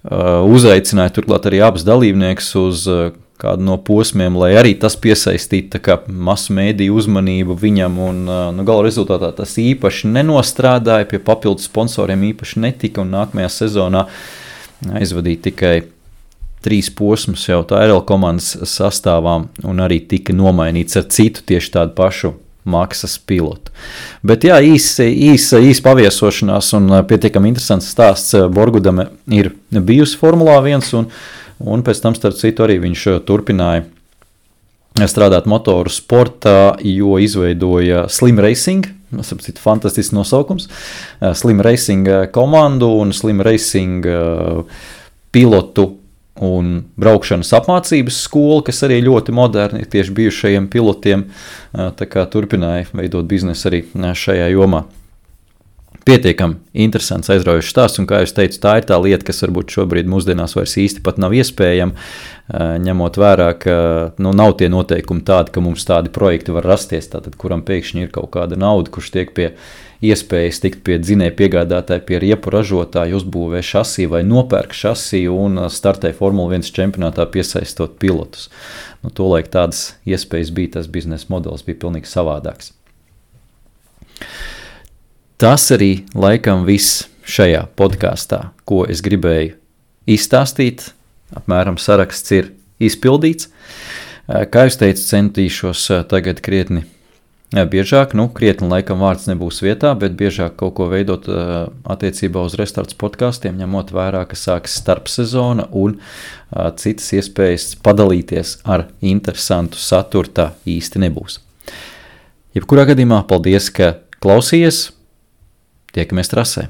uzaicināja turklāt arī abas dalībniekus uz kādu no posmiem, lai arī tas piesaistītu masu mēdīju uzmanību viņam, un gala rezultātā tas īpaši nenostrādāja, pie papildus sponsoriem īpaši netika, un nākamajā sezonā aizvadīja tikai 3 posmus jau TRL komandas sastāvām, un arī tika nomainīts ar citu tieši tādu pašu maksas pilotu. Bet jā, īsa paviesošanās un pietiekami interesants stāsts. Borgudame ir bijusi Formulā 1, un pēc tam, starp citu, arī viņš turpināja strādāt motoru sportā, jo izveidoja Slim Racing, fantastisks nosaukums, Slim Racing komandu un Slim Racing pilotu un braukšanas apmācības skola, kas arī ļoti moderni tieši bijušajiem pilotiem, tā kā turpināja veidot biznesu arī šajā jomā. Pietiekami interesants, aizraujošs stāsts, un kā jūs teicu, tā ir tā lieta, kas varbūt šobrīd mūsdienās vairs īsti pat nav iespējama, ņemot vērā, ka nav tie noteikumi tādi, ka mums tādi projekti var rasties, tātad kuram pēkšņi ir kaut kāda nauda, kurš tiek pie iespējas tikt pie dzinēja piegādātāja, pie riepu ražotāja, uzbūvē šasiju vai nopērk šasiju un startē Formula 1 čempionātā piesaistot pilotus. Tolaik tādas iespējas bija, tas biznesa modelis bija pilnīgi savādāks. Tas arī laikam viss šajā podkāstā, ko es gribēju izstāstīt. Apmēram saraksts ir izpildīts. Kā jūs teicu, centīšos tagad krietni biežāk, krietni laikam vārds nebūs vietā, bet biežāk kaut ko veidot attiecībā uz restarts podkāstiem, ņemot vērā, ka sāks starpsezona un citas iespējas padalīties ar interesantu saturu tā īsti nebūs. Jebkurā gadījumā paldies, ka klausījies. Tiekamies trasē.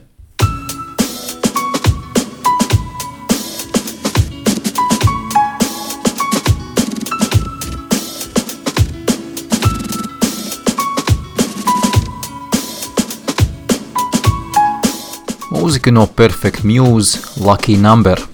Mūzika no Perfect Muse, Lucky Number.